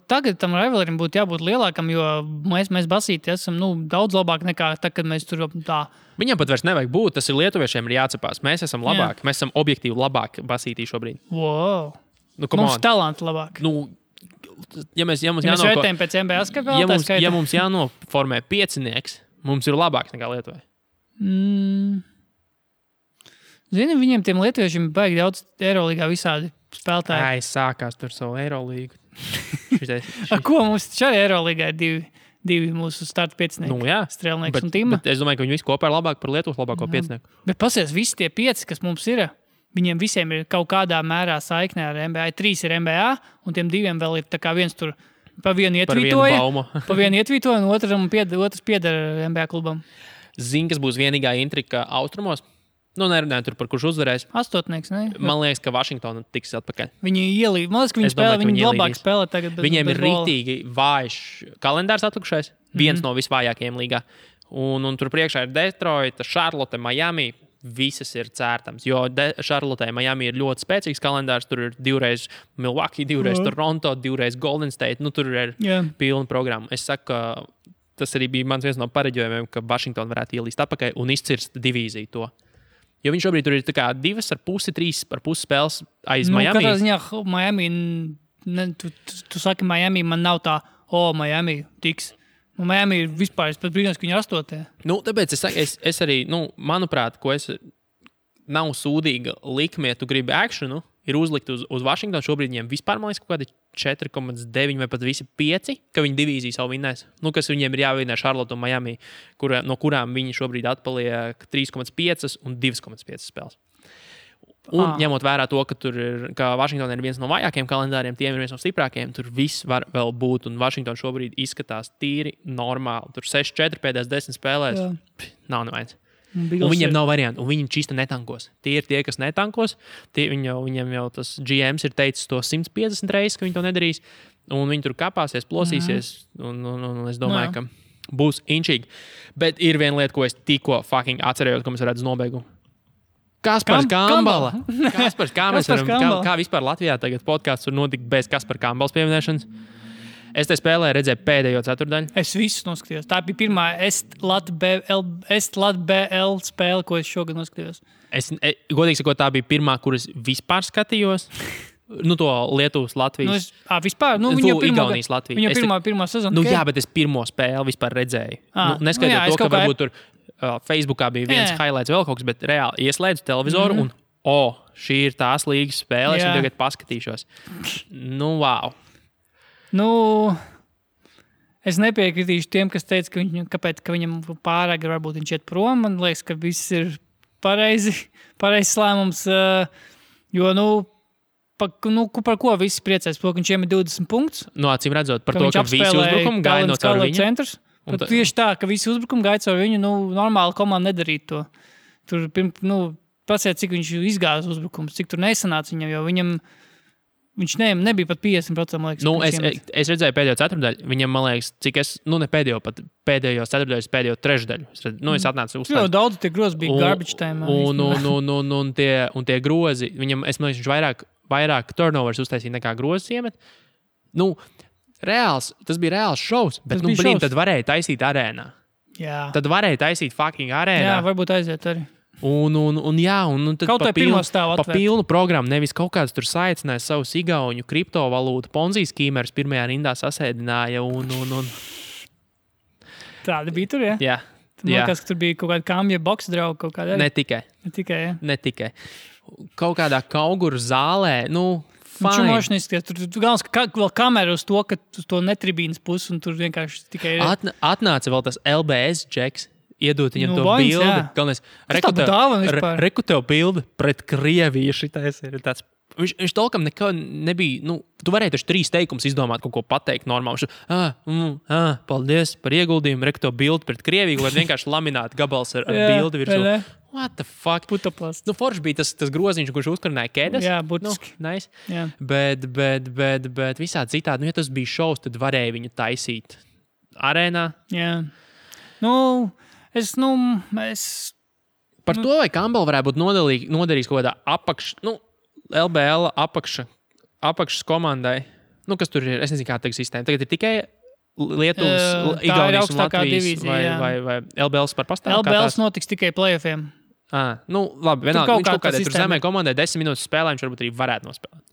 Tagad tam rivalrim būtu jābūt lielākam, jo mēs basīti esam daudz labāk nekā tā, kad mēs tur tā. Viņam pat vairs nevajag būt, tas ir lietuviešiem ir jācepās. Mēs esam labāki, mēs esam objektīvi labāki basītī šobrīd. Wow. Mums talanti labāk. Ja mēs vērtējam pēc NBA skaitā, ja mums jānoformē 5, mums ir labāks nekā Lietuvai. Zini, viņiem tiem lietuviešiem baigi daudz Eirolīgā visādi spēlētāji. Sākās tur savu Eirolīgu. Ko mums šajā Eirolīgā ir divi mūsu starta 5? Strēlnieks un Tima. Bet es domāju, ka viņi visi kopā ir labāki par Lietuvas labāko 5. Bet pasies, visi tie 5, kas mums ir, viņiem visiem ir kaut kādā mērā saiknē ar NBA. 3 ir NBA, un tiem 2 vēl ir tā kā viens tur pa vienu ietvītoja, un otrs pieder NBA klubam. Zini, kas būs vienīgā intrika austrumos? Nerunājot tur par kurš uzvarēs. 8, ne? Man liekas, ka Vašingtona tiks atpakaļ. Viņi ielīd. Man liekas, ka viņi labāk spēlē tagad. Viņiem ir rīktīgi vājš kalendārs atlikušais. Viens no visvājākajiem līgā. Un tur priekšā ir Detroita, Charlotte, Miami. Visas ir cērtams. Jo Charlotte, Miami ir ļoti spēcīgs kalendārs. Tur ir 2 Milwaukee, 2 Toronto, 2 Golden State. Tur ir pilna programma. Es saku, ka tas arī bija mans viens no pareģojumiem, ka Vašingtona varētu ielīst atpakaļ un izcirst divīziju to. Jo viņš šobrīd tur ir 2,5, 3,5 spēles aiz Miami. Katrā ziņā Miami, tu saki Miami, man nav tā, Miami tiks. Miami ir vispār, es pat brīnos, ka viņi ir 8. Tāpēc es arī, manuprāt, nav sūdīga likme, ja tu gribi akšanu, ir uzlikt uz Washingtonu. Šobrīd viņiem vispār, man liekas, kaut kādi 4,9 vai pat visi 5, ka viņi divīziju savu vinnēs. Kas viņiem ir jāvinnē Charlotte un Miami, no kurām viņi šobrīd atpaliek 3,5 un 2,5 spēles. Un ņemot vērā to, ka Washington ir viens no vājākajiem kalendāriem, tiem ir viens no stiprākajiem, tur viss var vēl būt. Un Washington šobrīd izskatās tīri normāli. Tur 6-4 pēdējās 10 spēlēs. Nav nevajag. Un viņiem nav variantu, un viņi čista netankos. Tie ir tie, kas netankos. Viņiem jau tas GMs ir teicis to 150 reizes, ka viņi to nedarīs. Un viņi tur kapāsies, plosīsies. Un es domāju, ka būs inčīgi. Bet ir viena lieta, ko es tikko fucking atcerējos, ko mēs varētu uz nobeigumu. Kaspars Kambala. Kā vispār Latvijā tagad podcasts var notikt bez Kaspara Kambalas pieminēšanas? Es te spēlēju, redzēju pēdējo ceturtdaļu. Es visu noskatījos. Tā bija pirmā Est-Lat-BL spēle, ko es šogad noskatījos. Godīgi sakot, tā bija pirmā, kuras vispār skatījos. To Lietuvas, Latvijas. Vispār? Igaunijas, Latvijas. Viņa pirmā sezona. Jā, bet es pirmo spēli vispār redzēju. Neskaitot to, ka varbūt tur Facebookā bija viens highlights vēl kaut kas, bet reāli ieslēdzu televizoru un šī ir tās līgas spēle, es tagad paskatīšos. Wow. Es nepiekritīšu tiem, kas teica, ka viņam pārāk varbūt viņš iet prom. Man liekas, ka viss ir pareizs lēmums. Jo, par ko visi priecēs? Par ko viņš iemet 20 punktus? Acīm redzot, par to, ka visi uzbrukumi gāja no caur viņu. Centrs. Tieši tā, ka visi uzbrukumi gāja caur viņu. Normāli komanda nedarītu to. Tur, pasiet, cik viņš izgāja uzbrukums, cik tur nesanāca viņam, jo viņš nebija pat 50%, liekas. Es redzēju pēdējo ceturtdaļu. Viņam, man liekas, cik es, ne pēdējo, pat pēdējo ceturtdaļu, pēdējo trešdaļu. Es atnācu uzstāt. Daudz tie grozi bija garbage time. Un tie grozi, viņam, es man liekas, viņš vairāk turnovers uztaisīja nekā grozes iemet. Tas bija reāls šovs, bet, tad varēja taisīt arēnā. Jā. Tad varēja taisīt fucking arēnā. Jā, varbūt aiziet arī. Un tad kaut pa pilnu programmu, nevis kaut kāds tur saicināja savus igauņu kriptovalūtu Ponzi skīmerus pirmajā rindā sasēdināja un. Tāda bija tur, ja? Jā. Man liekas, ka tur bija kaut kāda kamja boks drauga kaut kāda. Ne tikai. Kaut kādā kauguru zālē, fine. Tur galvens, ka vēl kamera uz to, ka uz to netribīnas pusi un tur vienkārši tikai atnāca vēl tas LBS džeks. Iedot viņam to bildi. Galvenais, reku tev bildi pret Krieviju. Šitais ir tāds. Viņš tolkam nekā nebija. Tu varēji taču 3 teikumus izdomāt, kaut ko pateikt normāli. Paldies par ieguldījumu. Reku tev bildi pret Krieviju, vai vienkārši lamināt gabals ar bildi virsū. What the fuck? Putaplast. Forši bija tas groziņš, kurš uzkarināja kēdes. Jā, būtiski. Nice. Bet visādi citādi. Ja tas bija šovs, tad varēja viņu taisīt arēnā. Jā. Par to, vai Kambala varētu būt nodarījis kaut kādā LBL apakšas komandai. Kas tur ir? Es nezinu, kā tā sistēma. Tagad ir tikai Lietuvas, Igaunijas un Latvijas divīzija, vai LBLs par pastāvu? LBLs notiks tikai playoffiem. Labi, vienalga, viņš kaut kādā tur zemē komandai 10 minūtes spēlē, viņš varbūt arī varētu nospēlēt.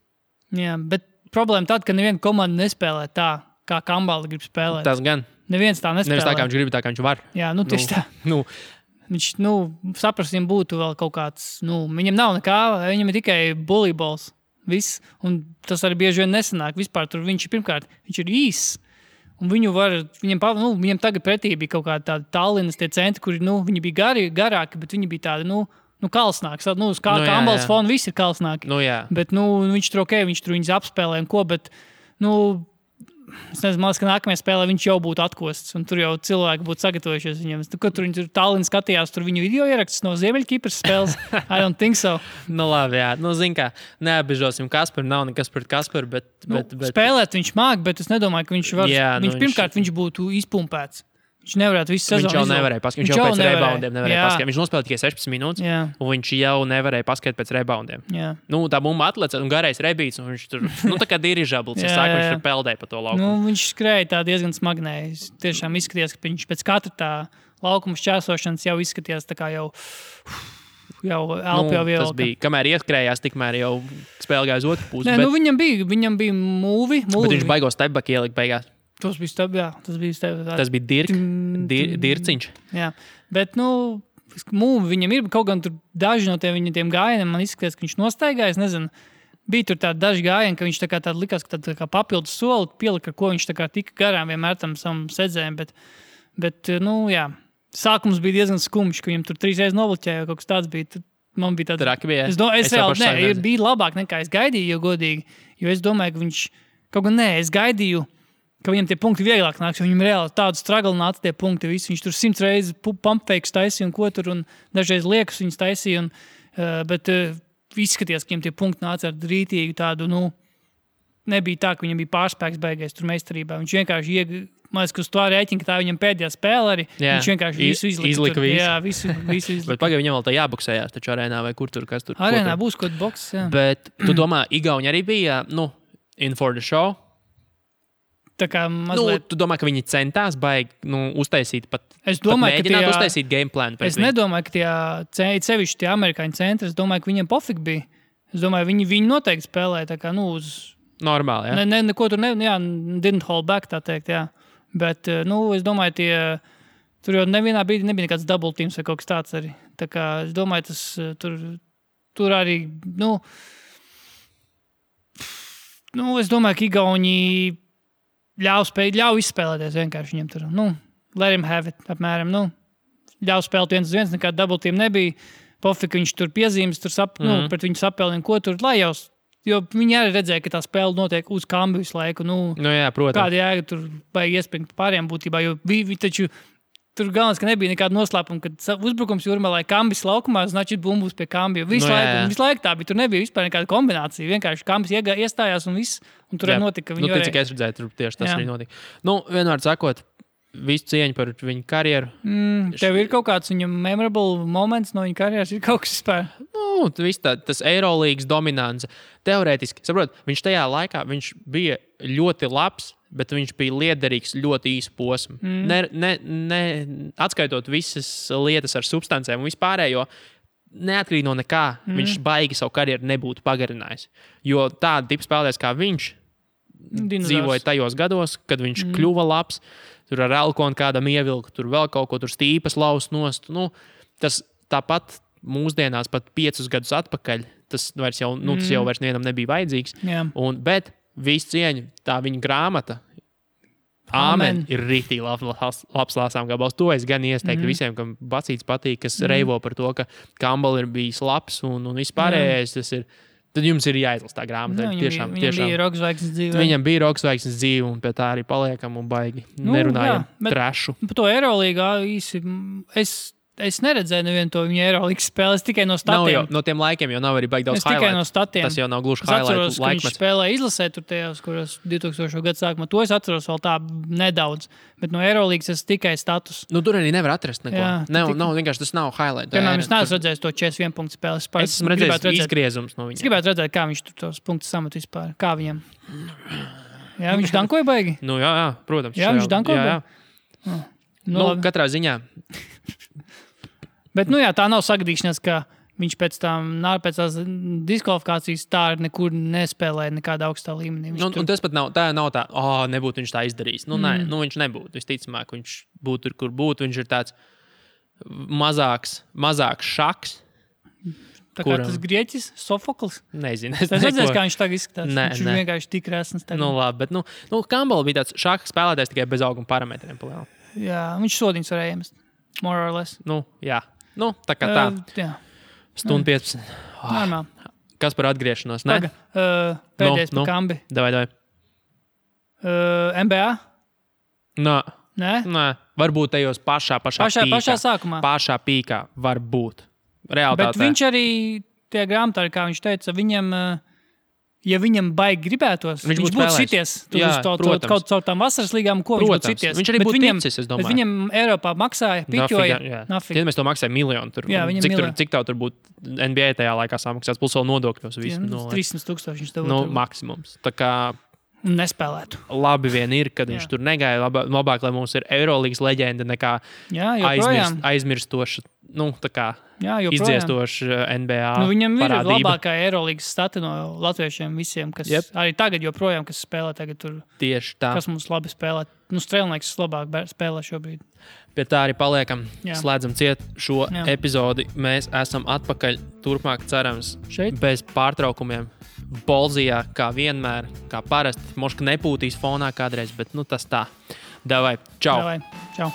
Jā, bet problēma tāda, ka neviena komanda nespēlē tā, kā Kambala grib spēlēt. Tas gan. Neviens tā nespēlē. Nevis tā, kā viņš grib, tā, kā viņš var. Jā, tieši tā. Viņš, saprast, viņam būtu vēl kaut kāds, viņam nav nekā, viņam ir tikai bullībols. Viss. Un tas arī bieži vien nesanāk. Vispār tur viņš ir īss. Un viņam tagad pretī bija kaut kāda tāda Tallinas tie centri, kuri, viņi bija garāki, bet viņi bija tādi, kalsnāki. Kambalas fona visi ir kalsnāki. Bet, viņš tur viņš tur viņus apspēlē un ko, bet, es nezinu, man liekas, ka nākamajā spēlē viņš jau būtu atkosts, un tur jau cilvēki būtu sagatavojušies viņam. Tur viņi Tallinas skatījās, tur viņu video ierakstus no Ziemeļkipras spēles. I don't think so. Labi, jā. Zin kā, neapbežosim Kasparu, nav nekas pret Kasparu, bet... Spēlēt viņš māk, bet es nedomāju, ka viņš var... Jā, pirmkārt, viņš būtu izpumpēts. Viņš nevarētu visu sezonu. Viņš jau nevarēja paskatīt. Viņš jau pēc reboundiem nevarēja paskatīt. Viņš nospēlēja tikai 16 minūtes, un viņš jau nevarēja paskatīt pēc reboundiem. Tā bumba atlece un garais rebīts, un viņš tur, tā kā dirižabls, viņš tur peldēja pa to laukumu. Viņš skrēja tā diezgan smagnēji. Tiešām izskatījās, ka viņš pēc katra tā laukuma šķērsošanas jau izskatījās tā kā jau... jau elpa jau Tas bija, kamēr ieskrējās, tikmēr jau spēle gāja uz otru pusi. Nē, viņam bija mūvi. Bet viņš baigos stepback ielikt beigās. Tas bija Tas bija dirciņš. Jā, bet, mūvi viņam ir kaut gan tur daži no tiem gājieniem, man izskatās, ka viņš nostaigājas, nezinu. Bija tur tādi daži gājieni, ka viņš tā likās, ka tā kā papildus soli pielika, ar ko viņš tā kā tika garām vienmēr tam savam sedzējiem, bet, jā. Sākums bija diezgan skumjš, ka viņam tur 3 reizes nobliķēja, kaut kas tāds bija. Man bija tāds. Traki bija. Es reāli, bija labāk nekā es gaidīju, jo godīgi, jo es domāju, ka viņš, kaut gan es gaidīju, ka viņam tie punkti vieglāk nāks, jo viņam reāli tādu stragli nāca tie punkti visi. Viņš tur 100 reizes pumpfakes taisīja un ko tur, un dažreiz liekas viņas taisīja, bet izskaties, ka viņam tie punkti nāca ar rītīgu tādu, nebija tā, ka viņam bija pārspēks beigais tur meistarībā. Viņš vienkārši man liekas, ka uz to rēķina, ka tā viņam pēdējā spēle arī. Viņš vienkārši visu izlika. Jā, visu izlika. Bet pagaidām viņam vēl tā jāboksējās, taču arēnā vai kur tur, kas tur. Arēnā būs kaut kāds boks, jā. Bet tu domā, Igauņi arī bija, in for the show? Tā kā mazliet... Tu domā, ka viņi centās baigi, uztaisīt pat mēģināt uztaisīt game planu? Es nedomāju, ka sevišķi tie amerikāņu centri, es domāju, ka viņiem pofik bija. Es domāju, viņi noteikti spēlēja tā kā, uz... Normāli, jā? Neko tur didn't hold back, tā teikt, jā. Bet, es domāju, tur jau nevienā brīdī nebija nekāds double teams vai kaut kas tāds arī. Tā kā, es domāju, tas tur arī, es domāju, ka Igauņi ļauj izspēlēties vienkārši viņam tur. Let him have it, apmēram, ļauj spēlēt 1-1, nekāda double team nebija. Pofika viņš tur piezīmes, pret viņu sapēlina, ko tur, lai jau... Jo viņi arī redzēja, ka tā spēle notiek uz kambi visu laiku. Jā, protams. Kāda jēga tur baigi iespringt pāriem būtībā, jo taču tur galvenais, ka nebija nekāda noslēpuma, kad uzbrukums Jūrmalai kambis laukumā, значит, bumbus pie kambi. Visu laiku tā bija, tur nebija vispār nekāda kombinācija. Vienkārši kambis iestājās un viss, un tur arī notika. Cik es redzēju, tur tieši tas arī notika. Vienmēr sakot, visu cieņu par viņu karjeru. Tev ir kaut kāds viņam memorable moments no viņa karjeras, ir kaut kas vispār? Tas Eirolīgas dominants. Teorētiski, saprot, viņš tajā laikā bija ļoti labs, bet viņš bija liederīgs ļoti īsu posmu. Atskaitot visas lietas ar substancēm un vispārējo, neatkarīgi no nekā, viņš baigi savu karjeru nebūtu pagarinājis. Jo tāda tipa spēlētājs kā viņš dzīvoja tajos gados, kad viņš kļuva labs, tur ar Elkonu kādam ievilka, tur vēl kaut ko, tur stīpas laust nost. Tas tāpat mūsdienās pat 5 gadus atpakaļ, tas jau nevienam nebija vajadzīgs. Bet visu cieņu, tā viņa grāmata, Āmen, ir rītīgi labs lāsām gabals. To es gan ieteiktu visiem, kam Bacīts patīk, kas reivo par to, ka Campbell ir bijis labs un vispārējais tas ir. Tad jums ir jāizlas tā grāmata. Viņam bija roksvaigznes dzīve. Viņam bija roksvaigznes dzīve, un pie tā arī paliekam un baigi nerunājam trešu. Par to Eirolīgā īsi es neredzēju nevienu to viņa Eirolīgas spēli, es tikai no statiem. No tiem laikiem jau nav arī baigi daudz highlight. Es tikai no statiem. Tas jau nav gluži highlight laikmets. Es atceros, ka viņš spēlēja izlasē tur tajos, kuros 2000. Gadu sākumā. To es atceros vēl tā nedaudz. Bet no Eirolīgas es tikai status. Tur arī nevar atrast neko. Nav vienkārši tas nav highlight. Piemēram, es neesmu redzējis to 41 punktu spēli. Es esmu redzējis izgriezums no viņa. Es gribētu redzēt, kā viņš tur tos punktus samet vispār. Kā viņam? Jā, viņš dankoja baigi? Jā, protams. Jā, viņš dankoja baigi? Katrā ziņā. Bet, tā nav sagadīšanās, ka viņš pēc tās diskvalifikācijas tā nekur nespēlēja nekādā augstā līmenī. Un tas pat nav tā, nebūtu viņš tā izdarījis. Nē, viņš nebūtu. Visticamāk, viņš būtu tur, kur būtu. Viņš ir tāds mazāks šaks. Tā kā tas grieķis, Sofoklis? Nezinu. Es redzēju, kā viņš tagad izskatās. Viņš ir vienkārši tik resns. Labi, bet Campbell bija tāds šaks spēlētājs tikai bez auguma parametriem. Jā, viņš sodiņus varēja iemest. More or less. Jā. Tā kā tā. Stundu 15. Normāli. Kas par atgriešanos? Pēdējais par kambi. Davai. NBA? Nē. Varbūt tajos pašā sākumā. Pašā pīkā varbūt. Realitātē. Bet viņš arī, tie grāmatā, kā viņš teica, viņam... Ja viņam baigi gribētos, viņš būtu šities kaut caur tām vasaras līgām, ko viņš būtu šities. Viņš arī būtu ticis, es domāju. Bet viņam Eiropā maksāja, piķoja. Tad mēs to maksājam miljonu. Cik tev tur būtu NBA tajā laikā samaksās, plus vēl nodokļos. 300,000 viņš tev būtu. Maksimums. Tā kā... Nespēlētu. Labi vien ir, kad viņš tur negāja. Labāk, lai mums ir Eirolīgas leģenda nekā aizmirstoša tā kā joprojām. NBA Viņam parādība. ir labākā Eirolīgas stati no latviešiem visiem, kas arī tagad joprojām, kas spēlē tagad tur. Tieši tā. Kas mums labi spēlē. Strēlnieks labāk spēlē šobrīd. Pie tā arī paliekam. Slēdzam ciet šo epizodi. Mēs esam atpakaļ turpmāk, cerams, šeit bez pārtraukumiem. Bolzijā, kā vienmēr, kā parasti. Moška nepūtīs fonā kādreiz, bet tas tā. Davai, čau! Čau!